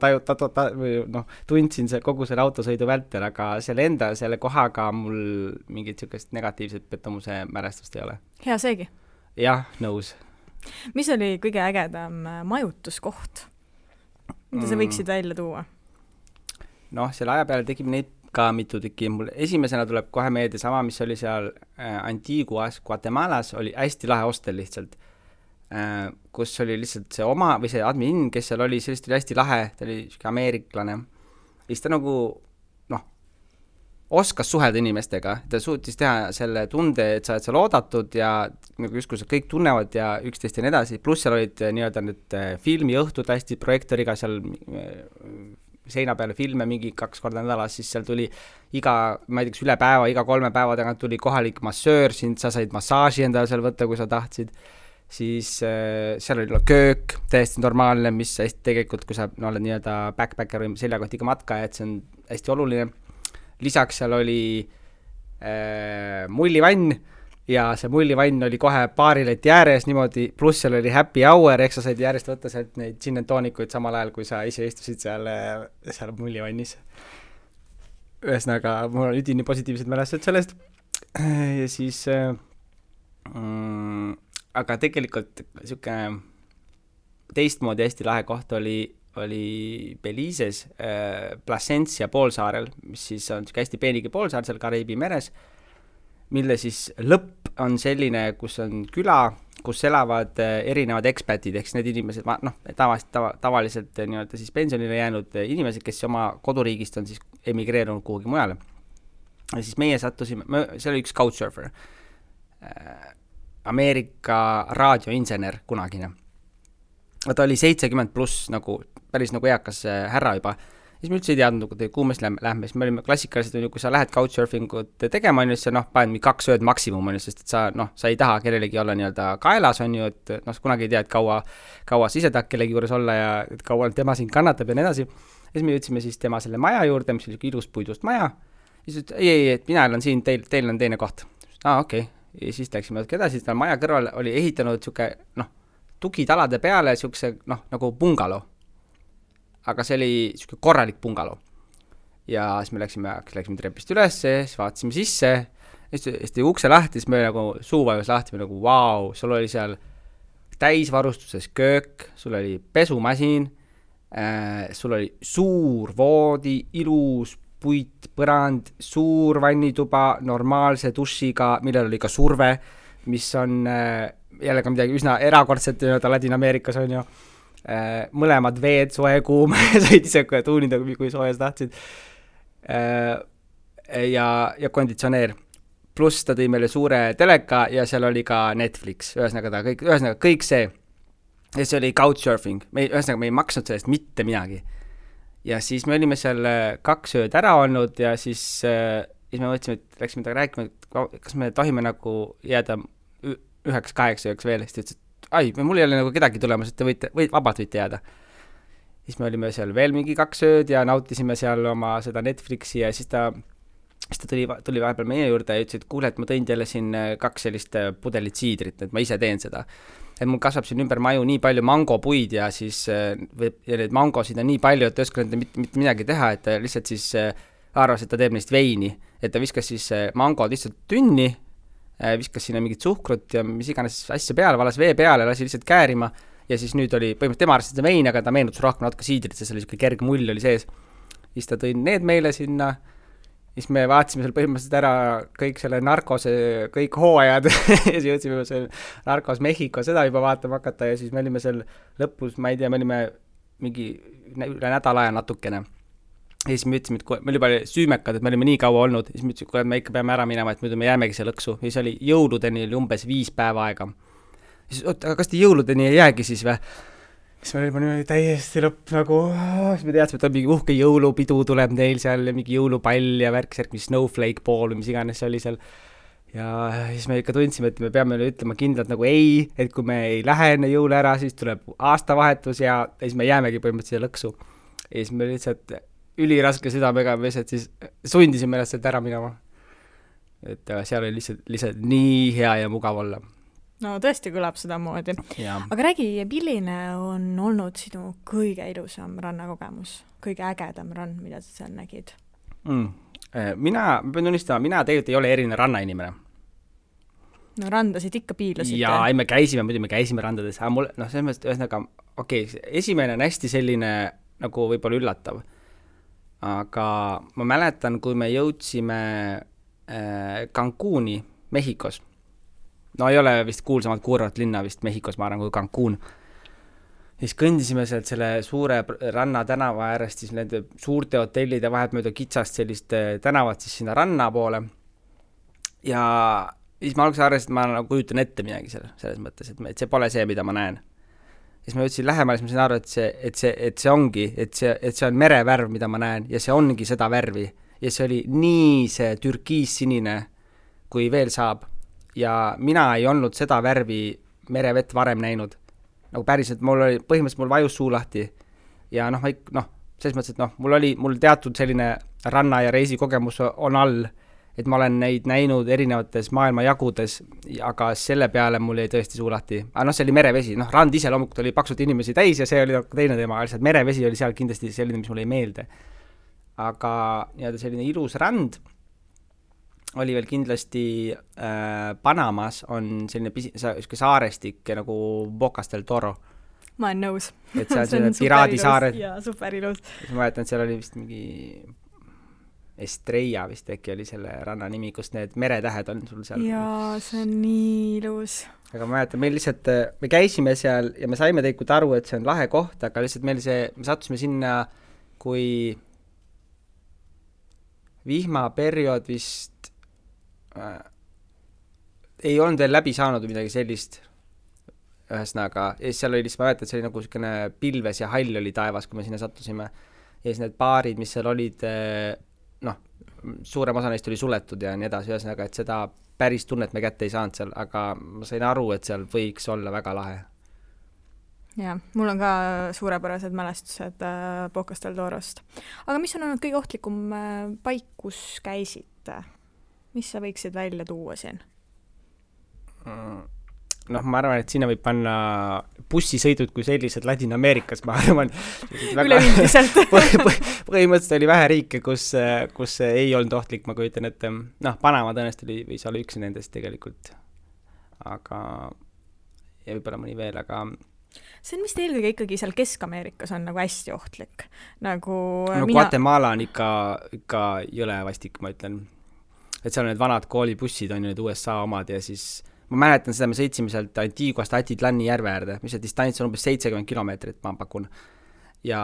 tundsin kogu selle autosõidu vältel, aga selle kohaga mul mingit sellist negatiivset pettumuse mälestust ei ole. Hea seegi. Jah, nõus. Mis oli kõige ägedam majutuskoht? Mida sa võiksid välja tuua? Selle aja peale tegime neid ka mitu tükki. Mul esimesena tuleb kohe meelde sama, mis oli seal Antiguas, Guatemalas, oli hästi lahe hostel lihtsalt, kus oli lihtsalt see oma, või see admin, kes seal oli, sellest oli hästi lahe, ta oli ameeriklane. Ja siis ta nagu, oskas suhelda inimestega, ta suutis teha selle tunde, et sa oled seal oodatud ja nagu justkui kõik tunnevad ja üksteist ja nii edasi, pluss seal olid nii-öelda need filmiõhtud hästi projektoriga seal seina peale filme mingi 2 korda nädalas, siis seal tuli ma ei tea, üle päeva, iga 3 päeva tagant tuli kohalik massöör, sa said massaaži endale seal võtta, kui sa tahtsid, siis seal oli köök, täiesti normaalne, mis hästi tegelikult, kui sa oled nii-öelda backpacker või seljakotiga matka, et see on hästi oluline. Lisaks seal oli mullivann ja see mullivann oli kohe paarileti ääres niimoodi, pluss seal oli happy hour, ehk sa said järjest võtta sealt neid gin and toonikuid samal ajal, kui sa ise istusid seal mullivannis. Ühesõnaga, mul on üdini positiivsed mälestused sellest ja siis aga tegelikult niisugune teistmoodi hästi lahe koht oli Belize's Placencia poolsaarel, mis siis on hästi peenigi poolsaar seal Kariibi meres, mille siis lõpp on selline, kus on küla, kus elavad erinevad ekspatid, ehk need inimesed, tavaliselt nii-öelda siis pensionile jäänud inimesed, kes oma koduriigist on siis emigreerunud kuhugi mujale. Ja siis meie sattusime, see oli üks couchsurfer, Ameerika raadioinsener kunagine. Ta oli 70 pluss, nagu, päris nagu eakas härra juba. Siis me üldse ei teadnud, kuhu me lähme, siis me olime klassikalised, kui sa lähed couchsurfingut tegema, on ju, siis paned 2 ööd maksimum, on ju, sest et sa ei taha kellelegi olla nii-öelda kaelas, on ju, et kunagi ei tea, et kaua sa ise tahad kellegi juures olla ja et kaua tema siin kannatab ja nii edasi. Ja siis me jõudsime siis tema selle maja juurde, mis oli ilus puidust maja. Ja siis ütles, ei, et mina olen siin, teil on teine koht. Okei. Ja siis läksime edasi, siis maja kõrval oli ehitanud siuke, tugitalade peale siukse, nagu bungalo. Aga see oli siuke korralik bungalo. Ja siis me läksime trepist üles, siis vaatasime sisse, siis tõi ukse lahti, siis me nagu suuvajus lahti, me nagu vau, sul oli seal täisvarustuses köök, sul oli pesumasin, sul oli suur voodi, ilus puit, põrand, suur vannituba, normaalse dušiga, millel oli ka surve, mis on jällegi midagi üsna erakordset Ladina-Ameerikas on ju. Mõlemad veed, soe, kuum, said ise tuunida, kui soojas tahtsid. Ja konditsioneer. Pluss ta tõi meile suure teleka ja seal oli ka Netflix. Ühesõnaga kõik see. Ja see oli couchsurfing. Ühesõnaga me ei maksnud sellest mitte midagi. Ja siis me olime seal 2 ööd ära olnud ja siis me mõtlesime, et läksime taga rääkima, et kas me tohime nagu jääda 9-8 ööks veel. Siis ütles, mul ei ole nagu kedagi tulemas, et vabalt võite jääda. Siis me olime seal veel mingi 2 ööd ja nautisime seal oma seda Netflixi ja siis ta tuli vahepeal meie juurde ja ütles, et kuule, et ma tõin teile siin 2 sellist pudelit siidrit, et ma ise teen seda. Et mul kasvab siin ümber maju nii palju mangopuid ja siis ja need mangosid on nii palju, et ta ei oska mitte midagi teha, et ta lihtsalt siis arvas, et ta teeb neist veini. Et ta viskas siis mangod lihtsalt tünni, viskas sinna mingit suhkrut ja mis iganes asja peale, valas vee peale, lasi lihtsalt käärima ja siis nüüd oli põhimõtteliselt tema arvas, et see vein, aga ta meenutus rohkem natuke siidrit, sest see oli selline kerge mull oli sees. Siis ta tõi need meile sinna, siis me vaatasime seal põhimõtteliselt ära kõik selle narkose, kõik hooajad ja siis jõudsime seal narkos Mehhiko seda juba vaatama hakata ja siis me olime seal lõpus, ma ei tea, me olime mingi üle nädala aja natukene. Ja siis me ütlesime, et me olime süümekad, et me olime nii kaua olnud, siis me ütlesime, et me ikka peame ära minema, et muidu me jäämegi see lõksu. Ja siis oli jõuludeni oli umbes 5 päeva aega. Siis, aga kas te jõuludeni ei jäägi siis või? Siis me olime niimoodi täiesti lõpp nagu, siis me teadsime, et on mingi uhke jõulupidu tuleb neil seal ja mingi jõulupall ja värk, mis snowflake ball, mis iganes see oli seal. Ja siis me ikka tundsime, et me peame ütlema kindlalt nagu ei, et kui me ei lähe enne jõule ära, siis tuleb aastavahetus ja siis me jäämegi põhimõtteliselt lõksu. Ja siis me lihtsalt üliraske südamega me siis sundisime ennast sealt ära minema. Et seal oli lihtsalt nii hea ja mugav olla. No tõesti kõlab seda moodi. Ja. Aga räägi, milline on olnud sinu kõige ilusam rannakogemus? Kõige ägedam rann, mida sa seal nägid? Ma pean tunnistama, mina tegelikult ei ole eriline rannainimene. No randasid ikka piilasite. Ja ei, me käisime randades. Selles mõttes ühesõnaga, esimene on hästi selline nagu võib-olla üllatav. Aga ma mäletan, kui me jõudsime Cancuni Mehhikos. No ei ole vist kuulsamalt kuurvat linna vist Mehhikos, ma arvan, kui Cancun. siis kõndisime sealt selle suure ranna tänava äärest siis nende suurte hotellide vahet mööda kitsast sellist tänavat siis sinna ranna poole. Ja siis ma alguses arvasin, et ma nagu kujutan ette midagi selles mõttes, et see pole see, mida ma näen. Siis ma jõudsin lähemale, siis ma sain aru, et see ongi, et see on merevärv, mida ma näen, ja see ongi seda värvi. Ja see oli nii see türkiissinine, kui veel saab. Ja mina ei olnud seda värvi merevett varem näinud. Nagu päriselt, põhimõtteliselt mul vajus suu lahti. Ja selles mõttes, et mul teatud selline ranna- ja reisikogemus on all, et ma olen neid näinud erinevates maailma jagudes, aga selle peale mul jäi tõesti suu lahti. Aga see oli merevesi, rand ise loomulikult oli paksult inimesi täis ja see oli teine teema, lihtsalt merevesi oli seal kindlasti selline, mis mulle ei meelde. Aga selline ilus rand oli veel kindlasti Panamas on selline saarestik nagu Bocas del Toro. Ma olen nõus. Et see on selline piraadisaared. Jaa, superilus. Ma mäletan, et seal oli vist mingi Estrella vist äkki oli selle ranna nimi, kus need meretähed on sul seal. Jaa, see on nii ilus. Aga ma mäletan, me käisime seal ja me saime tegelikult aru, et see on lahe koht, aga lihtsalt me sattusime sinna, kui vihmaperiood vist ei olnud veel läbi saanud midagi sellist ühesõnaga. Ja seal oli lihtsalt, ma mäletan, et see oli nagu selline pilves ja hall oli taevas, kui me sinna sattusime. Ja siis need baarid, mis seal olid, suurem osa neist oli suletud ja nii edasi, ühesõnaga, et seda päris tunnet me kätte ei saanud seal, aga ma sain aru, et seal võiks olla väga lahe. Jaa, mul on ka suurepärased mälestused Bocas del Torost. Aga mis on olnud kõige ohtlikum paik, kus käisid? Mis sa võiksid välja tuua siin? Ma arvan, et sinna võib panna bussisõidud kui sellised Ladina-Ameerikas, ma arvan. Üleüldiselt. Põhimõtteliselt oli vähe riike, kus ei olnud ohtlik, ma kujutan, et Panama tõenäoliselt võis olla üks nendest tegelikult. Aga, ja võib-olla mõni veel, aga see on vist eelkõige ikkagi seal Kesk-Ameerikas on nagu hästi ohtlik. Guatemala on ikka jõle vastik, ma ütlen. Et seal on need vanad koolibussid, on ju need USA omad ja siis ma mäletan seda, me sõitsime sealt Antiguast Atitlani järve äärde, mis see distants on umbes 70 kilomeetrit, ma pakun. Ja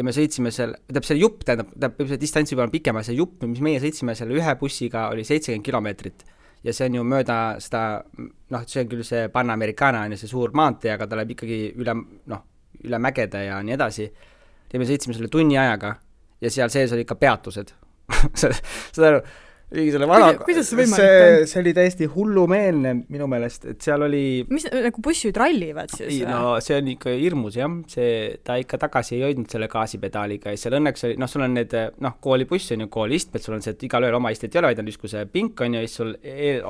me sõitsime seal, see jupp, see distants juba on pikema, see jupp, mis meie sõitsime selle ühe bussiga, oli 70 kilomeetrit. Ja see on ju mööda seda, see on küll see Panamericana, on ju see suur maantee, aga ta läheb ikkagi üle mägede ja nii edasi. Ja me sõitsime selle tunni ajaga ja seal sees oli ikka peatused. Seda aru? Kuidas see võimalik on? See oli täiesti hullumeelne minu meelest, et seal oli mis nagu bussid rallivad siis? See on ikka hirmus, jah. Ta ikka tagasi ei hoidnud selle gaasipedaaliga ja seal õnneks oli, sul on need koolibuss on ju koolistmed, sul on see, et igal ööl oma istet ei ole, vaid on justkui see pink on ju, siis sul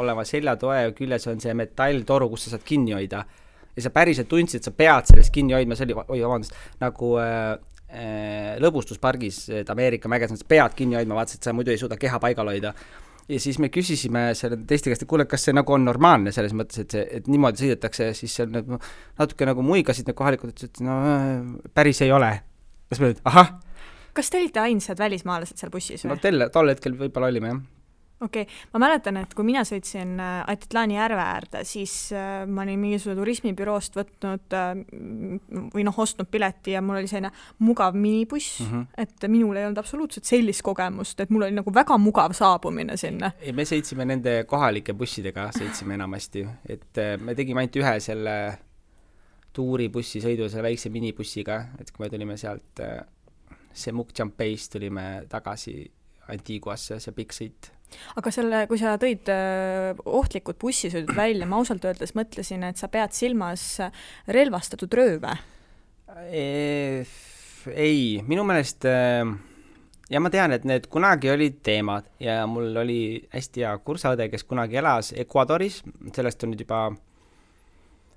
oleva seljatoe küljes on see metalltoru, kus sa saad kinni hoida ja sa päriselt tundsid, et sa pead sellest kinni hoidma, see oli, nagu lõbustuspargis, et Ameerika mäges, sa pead kinni hoidma, vaatasid, et sa muidu ei suuda keha paigal hoida. Ja siis me küsisime selle teiste käest, et kuule, kas see nagu on normaalne selles mõttes, et niimoodi sõidetakse, siis seal natuke nagu muigasid need kohalikud, et päris ei ole. Kas me nüüd, ahah? Kas te olite ainsad välismaalased seal bussis või? Tol hetkel võib-olla olime, jah. Okei. Ma mäletan, et kui mina sõitsin Atitlani järve äärde, siis ma olin mingisugune turismibüroost võtnud või ostnud pileti ja mul oli selline mugav minibuss, et minul ei olnud absoluutselt sellist kogemust, et mul oli nagu väga mugav saabumine sinna. Me sõitsime nende kohalike bussidega, sõitsime enamasti, et me tegime ainult ühe selle tuuribussi sõidu, selle väikse minibussiga, et kui me tulime sealt Semuc-Champeist, tulime tagasi Antiguasse, see pikk sõit. Aga kui sa tõid ohtlikud bussisõidud välja, ma ausalt öeldes mõtlesin, et sa pead silmas relvastatud rööve. Ei, minu meelest, ja ma tean, et need kunagi olid teemad ja mul oli hästi hea kursaõde, kes kunagi elas Ecuadoris, sellest on nüüd juba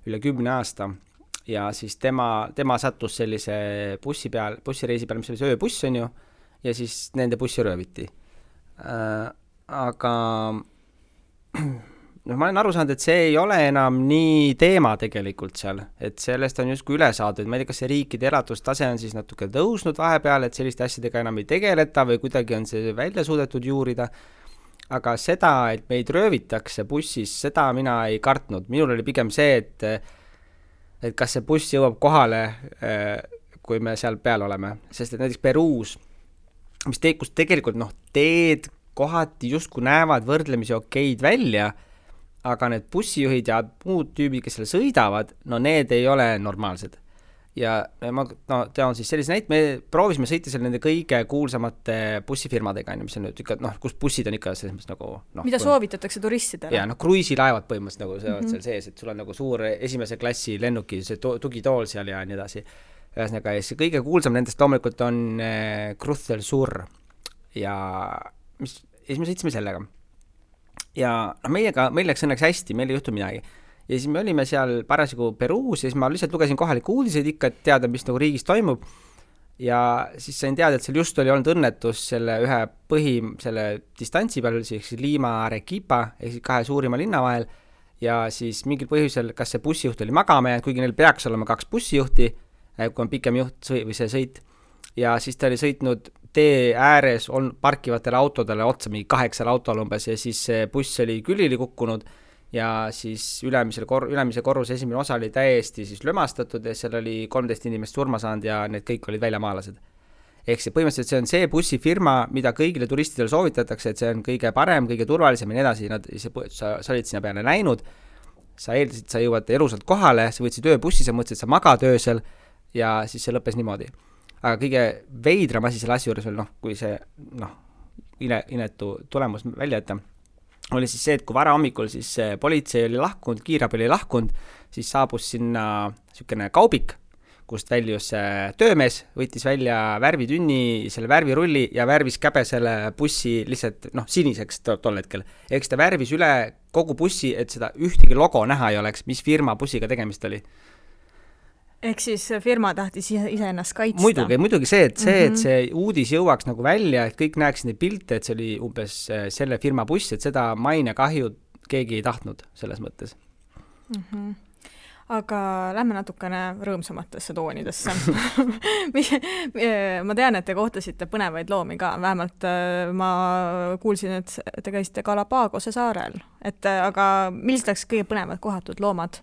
üle 10 aasta ja siis tema sattus sellise bussireisi peal, mis oli see ööbuss on ju, ja siis nende bussi rööviti. Aga ma olen aru saanud, et see ei ole enam nii teema tegelikult seal, et sellest on justkui üle saadud, ma ei tea, kas see riikide elatustase on siis natuke tõusnud vahepeal, et selliste asjadega enam ei tegeleta või kuidagi on see välja suudetud juurida, aga seda, et meid röövitakse bussis, seda mina ei kartnud, minul oli pigem see, et et kas see buss jõuab kohale, kui me seal peal oleme, sest et näiteks Peruus, kus tegelikult teed kohati justkui näevad võrdlemisi okeid välja, aga need bussijuhid ja muud tüübid, kes seal sõidavad, need ei ole normaalsed. Ja ma tean siis sellise näite, me proovisime sõita seal nende kõige kuulsamate bussifirmadega, mis on nüüd ikka, kus bussid on ikka selles mõttes mida soovitatakse turistidele? Ja kruiisilaevad põhimõtteliselt seal sees, et sul on suur esimese klassi lennuki, see tugitool seal ja nii edasi. Ühesõnaga, see kõige kuulsam nendest loomulikult on Cruz del Sur ja siis me sõitsime sellega. Ja meil läks õnneks hästi, meil ei juhtu midagi. Ja siis me olime seal parasjagu Peruus ja siis ma lihtsalt lugesin kohaliku uudiseid ikka, et teada, mis riigis toimub. Ja siis sain teada, et seal just oli olnud õnnetus selle ühe selle distantsi peal, siis Lima Arequipa, ehk siis 2 suurima linna vahel. Ja siis mingil põhjusel, kas see bussijuht oli magama jäänud, kuigi neil peaks olema 2 bussijuhti, kui on pikem juht või see sõit. Ja siis ta oli sõitnud tee ääres parkivatele autodele otsa, mingi 8 autol umbes, ja siis see buss oli külili kukkunud ja siis ülemise korruse esimene osa oli täiesti siis lömastatud ja seal oli 13 inimest surma saanud ja need kõik olid väljamaalased. Ehk see põhimõtteliselt see on see bussifirma, mida kõigile turistidele soovitatakse, et see on kõige parem, kõige turvalisem ja nii edasi. Sa olid sinna peale näinud, sa eeldasid, sa jõuad elusalt kohale, sa võtsid ööbussi, sa mõtlesid, sa magad öösel ja siis see lõppes niimoodi. Aga kõige veidram asi selle asja juures veel, kui see inetu tulemus välja jätta, oli siis see, et kui vara hommikul siis politsei oli lahkunud, kiirabi oli lahkunud, siis saabus sinna selline kaubik, kust väljus töömees, võttis välja värvitünni, selle värvirulli ja värvis käbesele bussi lihtsalt siniseks tol hetkel. Ehk ta värvis üle kogu bussi, et seda ühtegi logo näha ei oleks, mis firma bussiga tegemist oli. Ehk siis firma tahtis ise ennast kaitsta. Muidugi see, et see uudis jõuaks välja, et kõik näeks neid pilte, et see oli umbes selle firma buss, et seda maine kahju keegi ei tahtnud selles mõttes. Aga lähme natukene rõõmsamatesse toonidesse. Ma tean, et te kohtasite põnevaid loomi ka, vähemalt ma kuulsin, et te käisite Galapagose saarel, aga millised oleks kõige põnevad kohatud loomad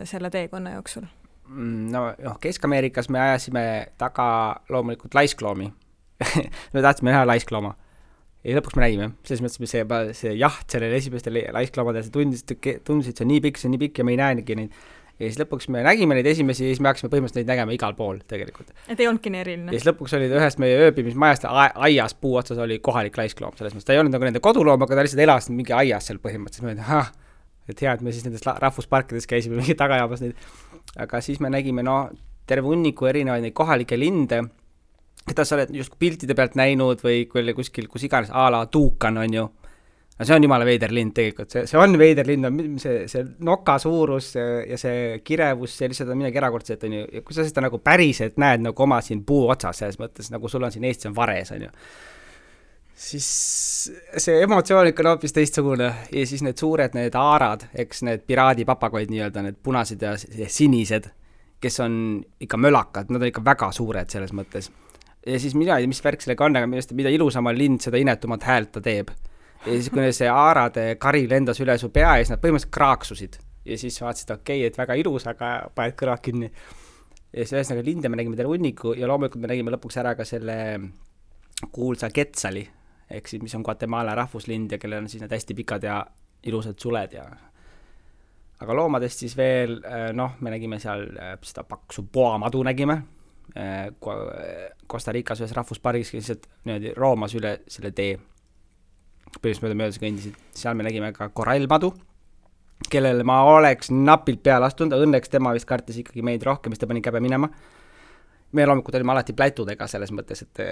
selle teekonna jooksul? Kesk-Ameerikas me ajasime taga loomulikult laiskloomi. Me tahtsime näha laisklooma. Ja lõpuks me nägime. Selles mõttes see jaht sellele esimestele laiskloomadele, see tundisid, see on nii pikk ja me ei näenigi neid. Ja siis lõpuks me nägime neid esimesi ja siis me hakkasime põhimõtteliselt neid nägema igal pool tegelikult. Et ei olnudki nii eriline. Ja siis lõpuks oli ühest meie ööbimismajast aias puu otsas oli kohalik laiskloom. Selles mõttes ta ei olnud nende koduloom, aga ta lihtsalt elas mingi aias seal põhimõtteliselt. Et hea, et me siis nendes rahvusparkides käisime mingi tagajaabas neid. Aga siis me nägime terve hunniku erinevaid neid kohalikke linde, keda sa oled just piltide pealt näinud või kuskil, kus iganes ala tuukan on ju. See on jumala veider lind tegelikult, see on veider lind, see noka suurus ja see kirevus, see lihtsalt on midagi erakordset on ju. Ja kui sa seda päriselt näed oma siin puu otsas selles mõttes, sul on siin Eestis on vares on ju. Siis see emotsioon ikka on hoopis teistsugune ja siis need suured need aarad, eks need piraadipapagoid nii-öelda, need punased ja sinised, kes on ikka mölakad, nad on ikka väga suured selles mõttes. Ja siis mina ei tea, mis värk sellega on, aga mida ilusama lind, seda inetumat häält ta teeb. Ja siis kui see aarade kari lendas üle su pea ja siis nad põhimõtteliselt kraaksusid. Ja siis vaatasid, okei, et väga ilus, aga paned kõrvad kinni. Ja siis ühesõnaga linde me nägime terve hunniku ja loomulikult me nägime lõpuks ära ka selle kuulsa Quetzali, ehk siis mis on Guatemala rahvuslind ja kellel on siis need hästi pikad ja ilusad suled ja aga loomadest siis veel me nägime seal seda paksu poamadu nägime Costa Ricas ühes rahvuspargis, kes niimoodi roomas üle selle tee põhjusmööda möödas kõndisid. Seal me nägime ka korallmadu, kellele ma oleks napilt peale astunud, õnneks tema vist kartis ikkagi meid rohkem, mis ta pani käbe minema. Me loomulikult olime alati plätudega selles mõttes, et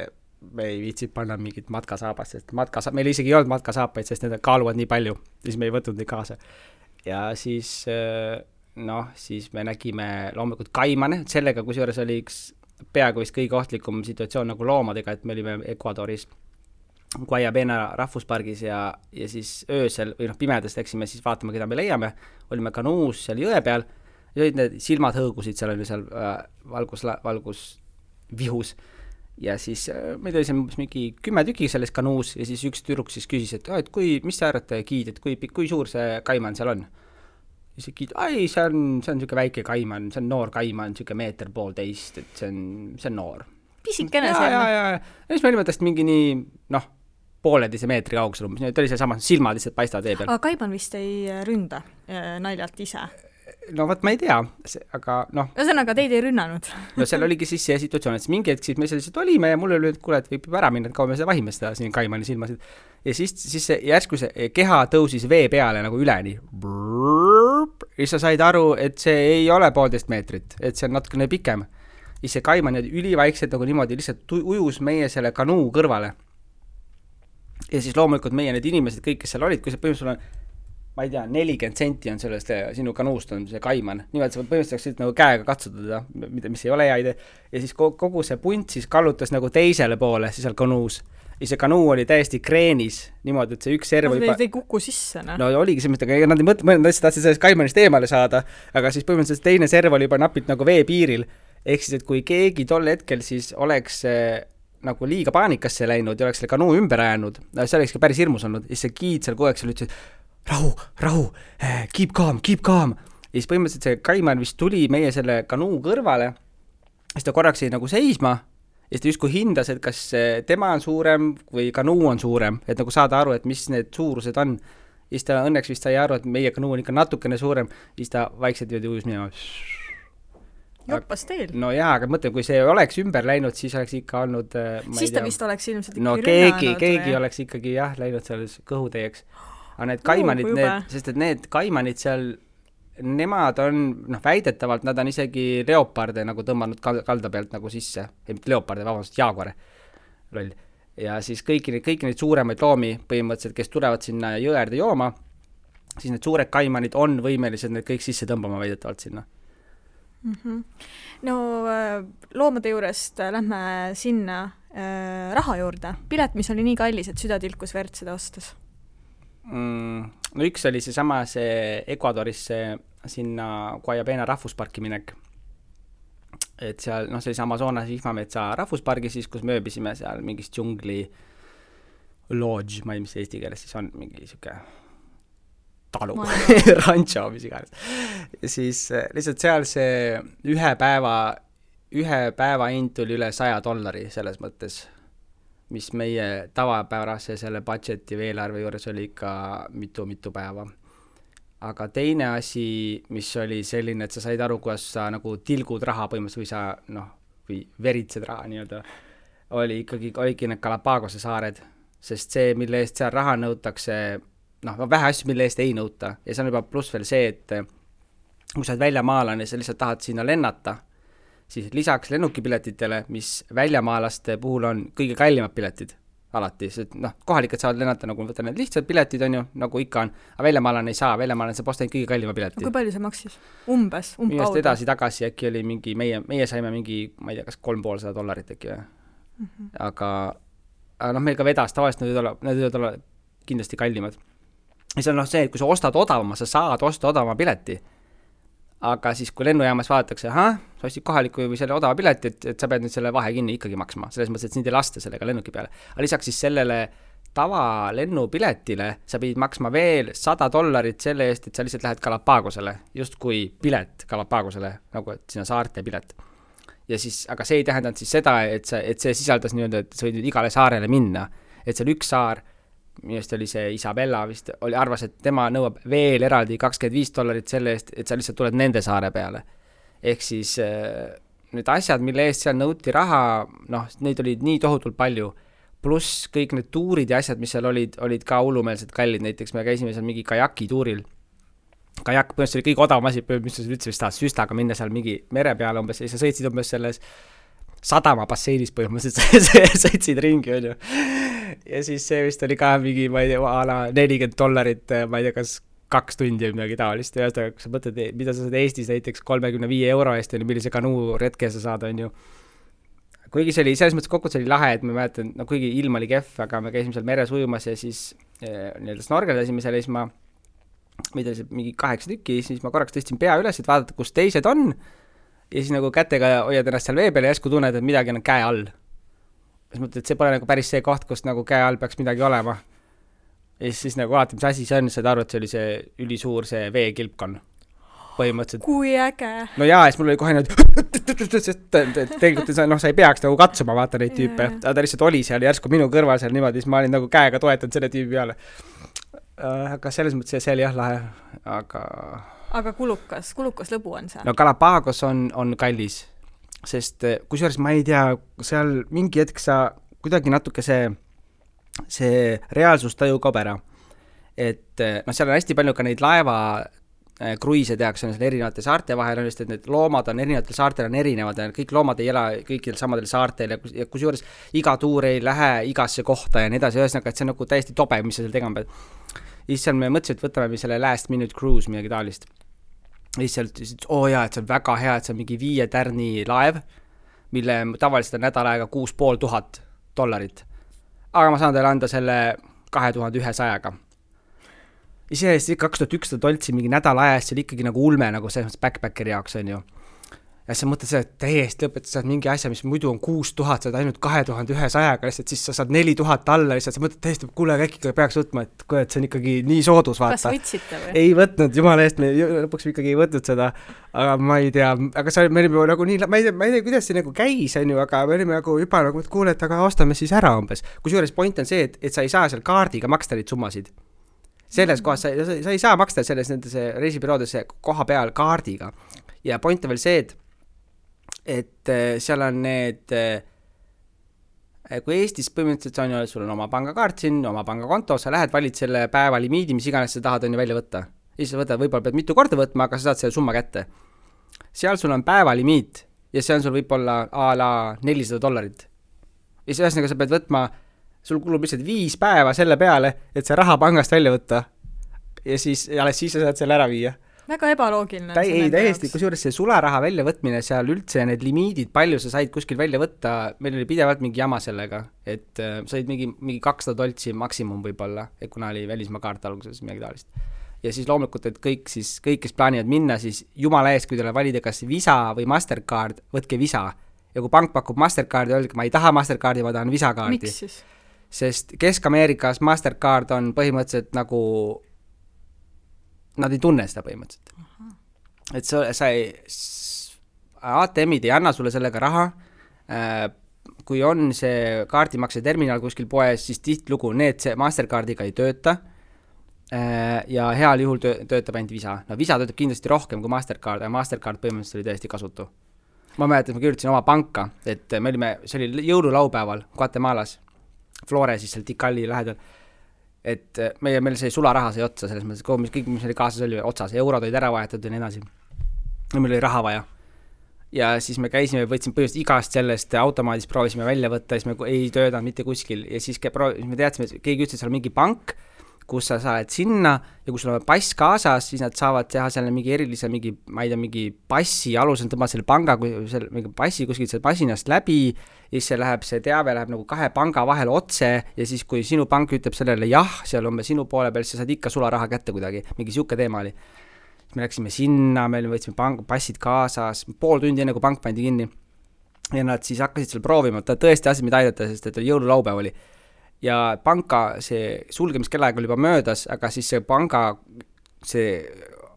me ei viitsid panna mingit matkasaabast, sest meil isegi ei olnud matkasaapaid, sest need kaaluvad nii palju, siis me ei võtnud neid kaasa. Ja siis, siis me nägime loomulikult kaimane, sellega kusjuures oli üks peaaegu vist kõige ohtlikum situatsioon nagu loomadega, et me olime Ecuadoris Guayabena rahvuspargis ja siis öösel või pimedas läksime siis vaatama, keda me leiame, olime kanuus seal jõe peal ja olid need silmad hõõgusid, seal oli seal valgusvihus. Ja siis meil oli seal mingi 10 tüki selles kanuus ja siis üks tüdruk siis küsis, et mis sa arvate, giid, et kui suur see kaiman seal on? siis ai, see on niisugune väike kaiman, see on noor kaiman, niisugune 1,5 meetrit, et see on noor. Pisikene see. Ja siis me olime tast mingi nii, 1,5 meetri kaugusel umbes, ta oli see sama, silmad lihtsalt paistavad vee peal. Aga kaiman vist ei ründa naljalt ise? No vot, ma ei tea, aga Ühesõnaga, teid ei rünnanud? No seal oligi siis see situatsioon, et mingi hetk siis me selliselt olime ja mulle oli, et kuule, et võib ära minna, et kaua me seda vahime seda siin kaimani silmasid. Ja siis see järsku see keha tõusis vee peale nagu üleni. Ja sa said aru, et see ei ole 1,5 meetrit, et see on natukene pikem. Ja see kaiman ülivaikselt nagu niimoodi lihtsalt ujus meie selle kanuu kõrvale. Ja siis loomulikult meie need inimesed, kõik, kes seal olid, kui see põhimõtteliselt on ma ei tea, 40 senti on sellest sinu kanuust on see kaiman. Nimelt sa põhimõtteliselt nagu käega katsutada, mis ei ole hea idee. Ja siis kogu see punt siis kallutas nagu teisele poole siis seal kanuus. Ja see kanuu oli täiesti kreenis niimoodi, et see üks serv juba... Te ei kuku sisse, no? No oligi see mõte, aga nad ei mõelnud, et tahtsid sellest kaimanist eemale saada, aga siis põhimõtteliselt teine serv oli juba napilt nagu vee piiril. Ehk siis, et kui keegi tol hetkel siis oleks nagu liiga paanikasse läinud ja oleks selle kanuu ümber ajanud, see oleks ka päris hirmus olnud, ja see giid seal kogu aeg seal ütles, rahu, keep calm. Ja siis põhimõtteliselt see kaiman vist tuli meie selle kanuu kõrvale, siis ta korraks jäi nagu seisma, ja siis ta justkui hindas, et kas tema on suurem või kanuu on suurem, et nagu saada aru, et mis need suurused on. Ja siis ta õnneks vist sai aru, et meie kanuu on ikka natukene suurem, ja siis ta vaikselt ujus minema. Joppas teil. No jaa, aga mõtleme, kui see oleks ümber läinud, siis oleks ikka olnud... Siis ta vist oleks ilmselt no keegi oleks ikkagi läinud seal kõhutäieks. Aga need kaimanid, sest et need kaimanid seal, nemad on, väidetavalt, nad on isegi leoparde nagu tõmmanud kalda pealt nagu sisse. Leoparde, vabandust, jaagore. Loll. Ja siis kõiki neid suuremaid loomi põhimõtteliselt, kes tulevad sinna jõerde jooma, siis need suured kaimanid on võimelised need kõik sisse tõmbama väidetavalt sinna. No loomade juurest lähme sinna raha juurde. Pilet, mis oli nii kallis, et süda tilkus verd seda ostas? No üks oli see Ecuadorisse sinna Guayabena rahvusparki minek. Et seal, see oli Amazonas vihmametsa rahvuspargi siis, kus me ööbisime seal mingis džungli lodge, ma ei mis eesti keeles siis on, mingi siuke talu, rancho, mis iganes. Ja siis lihtsalt seal see ühe päeva hind tuli üle $100 selles mõttes, mis meie tavapärase selle budgeti või eelarve juures oli ikka mitu päeva. Aga teine asi, mis oli selline, et sa said aru, kuidas sa nagu tilgud raha põhimõtteliselt või sa, või veritsed raha nii-öelda, oligi need Galapagose saared, sest see, mille eest seal raha nõutakse, vähe asju, mille eest ei nõuta. Ja see on juba pluss veel see, et kui sa oled väljamaalane ja sa lihtsalt tahad sinna lennata, siis lisaks lennukipiletitele, mis väljamaalaste puhul on kõige kallimad piletid alati, sest kohalikud saavad lennata, nagu võtta need lihtsad piletid on ju, nagu ikka on, aga väljamaalane ei saa, väljamaalane saab osta kõige kallima pileti. Kui palju see maksis? Umbkaudu? Edasi-tagasi äkki oli mingi, meie saime mingi, ma ei tea, kas $350 äkki või. Aga meil ka vedas, tavaliselt need võivad olla kindlasti kallimad. Ja see on see, et kui sa ostad odavama, sa saad osta odavama pileti. Aga siis, kui lennujaamas vaadatakse, sa ostid kohaliku või selle odava pileti, et sa pead nüüd selle vahe kinni ikkagi maksma. Selles mõttes, et sind ei lasta sellega lennuki peale. Aga lisaks siis sellele tava lennupiletile sa pidid maksma veel $100 selle eest, et sa lihtsalt lähed Galapagosele, just kui pilet Galapagosele, nagu et sinna saarte pilet. Ja siis, aga see ei tähendanud siis seda, et see sisaldas nii-öelda, et sa võid nüüd igale saarele minna. Et seal üks saar, minust oli see Isabella vist, arvas, et tema nõuab veel eraldi $25 selle eest, et sa lihtsalt tuled nende saare peale. Ehk siis need asjad, mille eest seal nõuti raha, neid olid nii tohutult palju, pluss kõik need tuurid ja asjad, mis seal olid ka hullumeelselt kallid, näiteks me käisime seal mingi kajaki tuuril. Kajak põhimõtteliselt oli kõige odavam asi, mis sa üldse vist tahad süstaga minna seal mingi mere peale umbes, ja sa sõitsid umbes selles sadama basseinis põhimõtteliselt sõitsid ringi, on ju. Ja siis see vist oli ka mingi, ma ei tea, $40, ma ei tea, kas 2 tundi või midagi taolist. Ja kui sa mõtled, mida sa saad Eestis näiteks €35 eest, millise kanuu retke sa saad, on ju. Kuigi see oli, selles mõttes kokku see oli lahe, et ma mäletan, kuigi ilm oli kehv, aga me käisime seal meres ujumas ja siis snorgeldasime seal ja siis ma meid oli mingi 8 tükki, siis ma korraks tõstsin pea üles, et vaadata, kus teised on. Ja siis nagu kätega hoiad ennast seal vee peal ja järsku tunned, et midagi on käe all. Siis mõtled, et see pole nagu päris see koht, kus nagu käe all peaks midagi olema. Ja siis nagu vaatad, mis asi see on, saad aru, et see oli see ülisuur see veekilpkon. põhimõtteliselt. Kui äge. No jaa, siis mul oli kohe sest tegelikult sa ei peaks nagu katsuma vaata neid tüüpe, aga ta lihtsalt oli seal järsku minu kõrval seal niimoodi, siis ma olin nagu käega toetanud selle tüübi peale. Aga selles mõttes see oli jah lahe, aga kulukas lõbu on see? No Galapagos on kallis, sest kusjuures ma ei tea, seal mingi hetk sa kuidagi natuke see reaalsustaju kaob ära. Et seal on hästi palju ka neid laeva kruiise tehakse seal erinevate saarte vahel, just et need loomad on erinevatel saartel on erinevad ja kõik loomad ei ela kõikidel samadel saartel ja kusjuures iga tuur ei lähe igasse kohta ja nii edasi, ühesõnaga, et see on nagu täiesti tobe, mis sa seal tegema pead. Ja siis seal me mõtlesime, et võtame selle last minute cruise midagi taolist. Ja siis seal ütlesid, et see on väga hea, et see on mingi 5 tärni laev, mille tavaliselt on nädal aega $6,500. Aga ma saan teile anda selle 2100-ga. Iseenesest 2100 doltsi mingi nädal ajast, see oli ikkagi nagu ulme, nagu selles backpackeri jaoks on ju. Ja sa mõtled seda, et täiesti lõpetad, saad mingi asja, mis muidu on 6000, saad ainult 2100-ga, lihtsalt siis sa saad 4000 alla, lihtsalt sa mõtled täiesti, kuule, äkki peaks võtma, et see on ikkagi nii soodus, vaata. Kas võtsite või? Ei võtnud, jumala eest, me lõpuks ikkagi ei võtnud seda, aga ma ei tea, aga me olime nagu nii, ma ei tea, kuidas see nagu käis, on ju, aga me olime nagu juba nagu, et kuule, et aga ostame siis ära umbes. Kusjuures point on see, et sa ei saa seal kaardiga maksta neid summasid. Selles kohas sa ei saa maksta selles nendes reisibüroodes koha peal kaardiga. Ja point on veel see, et seal on need, kui Eestis põhimõtteliselt on ju, sul on oma pangakaart siin, oma pangakonto, sa lähed, valid selle päeva limiidi, mis iganes sa tahad on ju välja võtta. Ja siis sa võtad, võib-olla pead mitu korda võtma, aga sa saad selle summa kätte. Seal sul on päeva limiit ja see on sul võib-olla a la $400. Ja siis ühesõnaga sa pead võtma, sul kulub lihtsalt 5 päeva selle peale, et see raha pangast välja võtta ja siis sa saad selle ära viia. Väga ebaloogiline. Ei, täiesti, kusjuures see sularaha välja võtmine seal üldse need limiidid, palju sa said kuskil välja võtta, meil oli pidevalt mingi jama sellega, et said mingi $200 maksimum võib-olla, et kuna oli välismaa kaart alguses midagi taolist. Ja siis loomulikult, et kõik, kes plaanivad minna, siis jumala eest, kui teile valida kas Visa või Mastercard, võtke Visa. Ja kui pank pakub Mastercardi, öelge, ma ei taha Mastercardi, ma tahan Visa kaardi. Miks siis? Sest Kesk-Ameerikas Mastercard on põhimõtteliselt nagu nad ei tunne seda põhimõtteliselt. Et sa ei, ATM-id ei anna sulle sellega raha, kui on see kaardimakse terminal kuskil poes, siis tihtilugu see Mastercardiga ei tööta ja heal juhul töötab ainult Visa. No Visa töötab kindlasti rohkem kui Mastercard, ja Mastercard põhimõtteliselt oli täiesti kasutu. Ma mäletan, et ma kirjutasin oma panka, et see oli jõululaupäeval Guatemalas, Flore siis seal Tikali lähedal, et meil see sularaha sai otsa selles mõttes, kõik, mis oli kaasas oli otsas, eurod olid ära vahetatud ja nii edasi. Ja meil oli raha vaja. Ja siis me käisime, võtsime põhimõtteliselt igast sellest automaadist, proovisime välja võtta, siis me ei töötanud mitte kuskil ja siis me teadsime, et keegi ütles, et seal on mingi pank, kus sa saad sinna ja kui sul on pass kaasas, siis nad saavad teha selle mingi erilise, ma ei tea, mingi passi alusel tõmbad selle panga, mingi passi kuskilt selle passinast läbi ja siis see teave läheb nagu 2 panga vahel otse ja siis kui sinu pank ütleb sellele jah, seal on sinu poole peal, siis sa saad ikka sularaha kätte kuidagi, mingi siuke teema oli. Me läksime sinna, me võtsime passid kaasas, pool tundi enne kui pank pandi kinni ja nad siis hakkasid seal proovima, ta tõesti asid meid aidata, sest et jõululaupäev oli. Ja panka see sulgemiskellaaeg oli juba möödas, aga siis see panga, see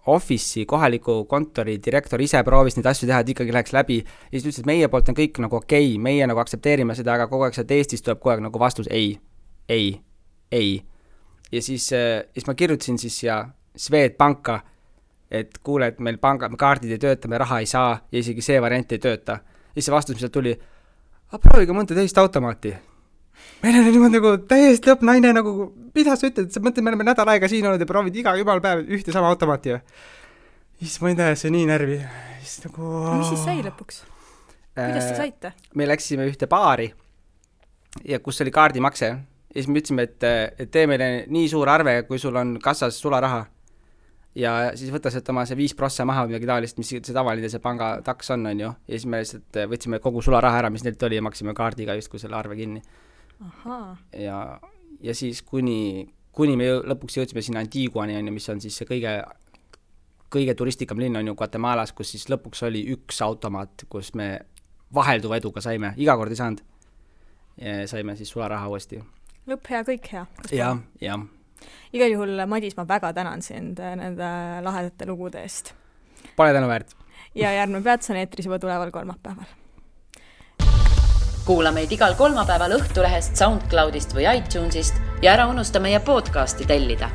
office'i, kohaliku kontori direktor ise proovis neid asju teha, et ikkagi läheks läbi ja siis ütles, et meie poolt on kõik nagu okei, meie nagu aktsepteerime seda, aga kogu aeg sealt Eestis tuleb kogu aeg nagu vastus ei. Ja siis ma kirjutasin siis ja Swedbanka, et kuule, et meil kaardid ei tööta, me raha ei saa ja isegi see variant ei tööta. Ja siis see vastus, mis tuli, prooviga mõnda teist automaati. Meil on niimoodi nagu täiesti lõpp naine nagu, mida sa ütled, sa mõtled, me oleme nädal aega siin olnud ja proovid iga jumal päev ühte sama automaati. Siis ma ei tea, see nii närvi. Nagu... Mis siis sai lõpuks? Kuidas te saite? Me läksime ühte baari ja kus oli kaardimakse ja siis me ütlesime, et tee meile nii suur arve, kui sul on kassas sularaha ja siis võtta sealt oma see 5% maha või midagi taolist, mis see tavaline see panga taks on ju ja siis me lihtsalt võtsime kogu sularaha ära, mis neilt oli ja maksime kaardiga just kui selle arve kinni. Ja siis kuni me lõpuks jõudsime sinna Antiguani, mis on siis see kõige turistikam linn on ju Guatemalas, kus siis lõpuks oli üks automaat, kus me vahelduva eduga saime, iga kord ei saanud ja saime siis sularaha uuesti. Lõpp hea, kõik hea. Ja. Igal juhul, Madis, ma väga tänan sind nende lahedate lugude eest. pole tänuväärt. Ja Järgne peatus on eetris juba tuleval kolmapäeval. Kuula meid igal kolmapäeval Õhtulehest, SoundCloudist või iTunesist ja ära unusta meie podcasti tellida.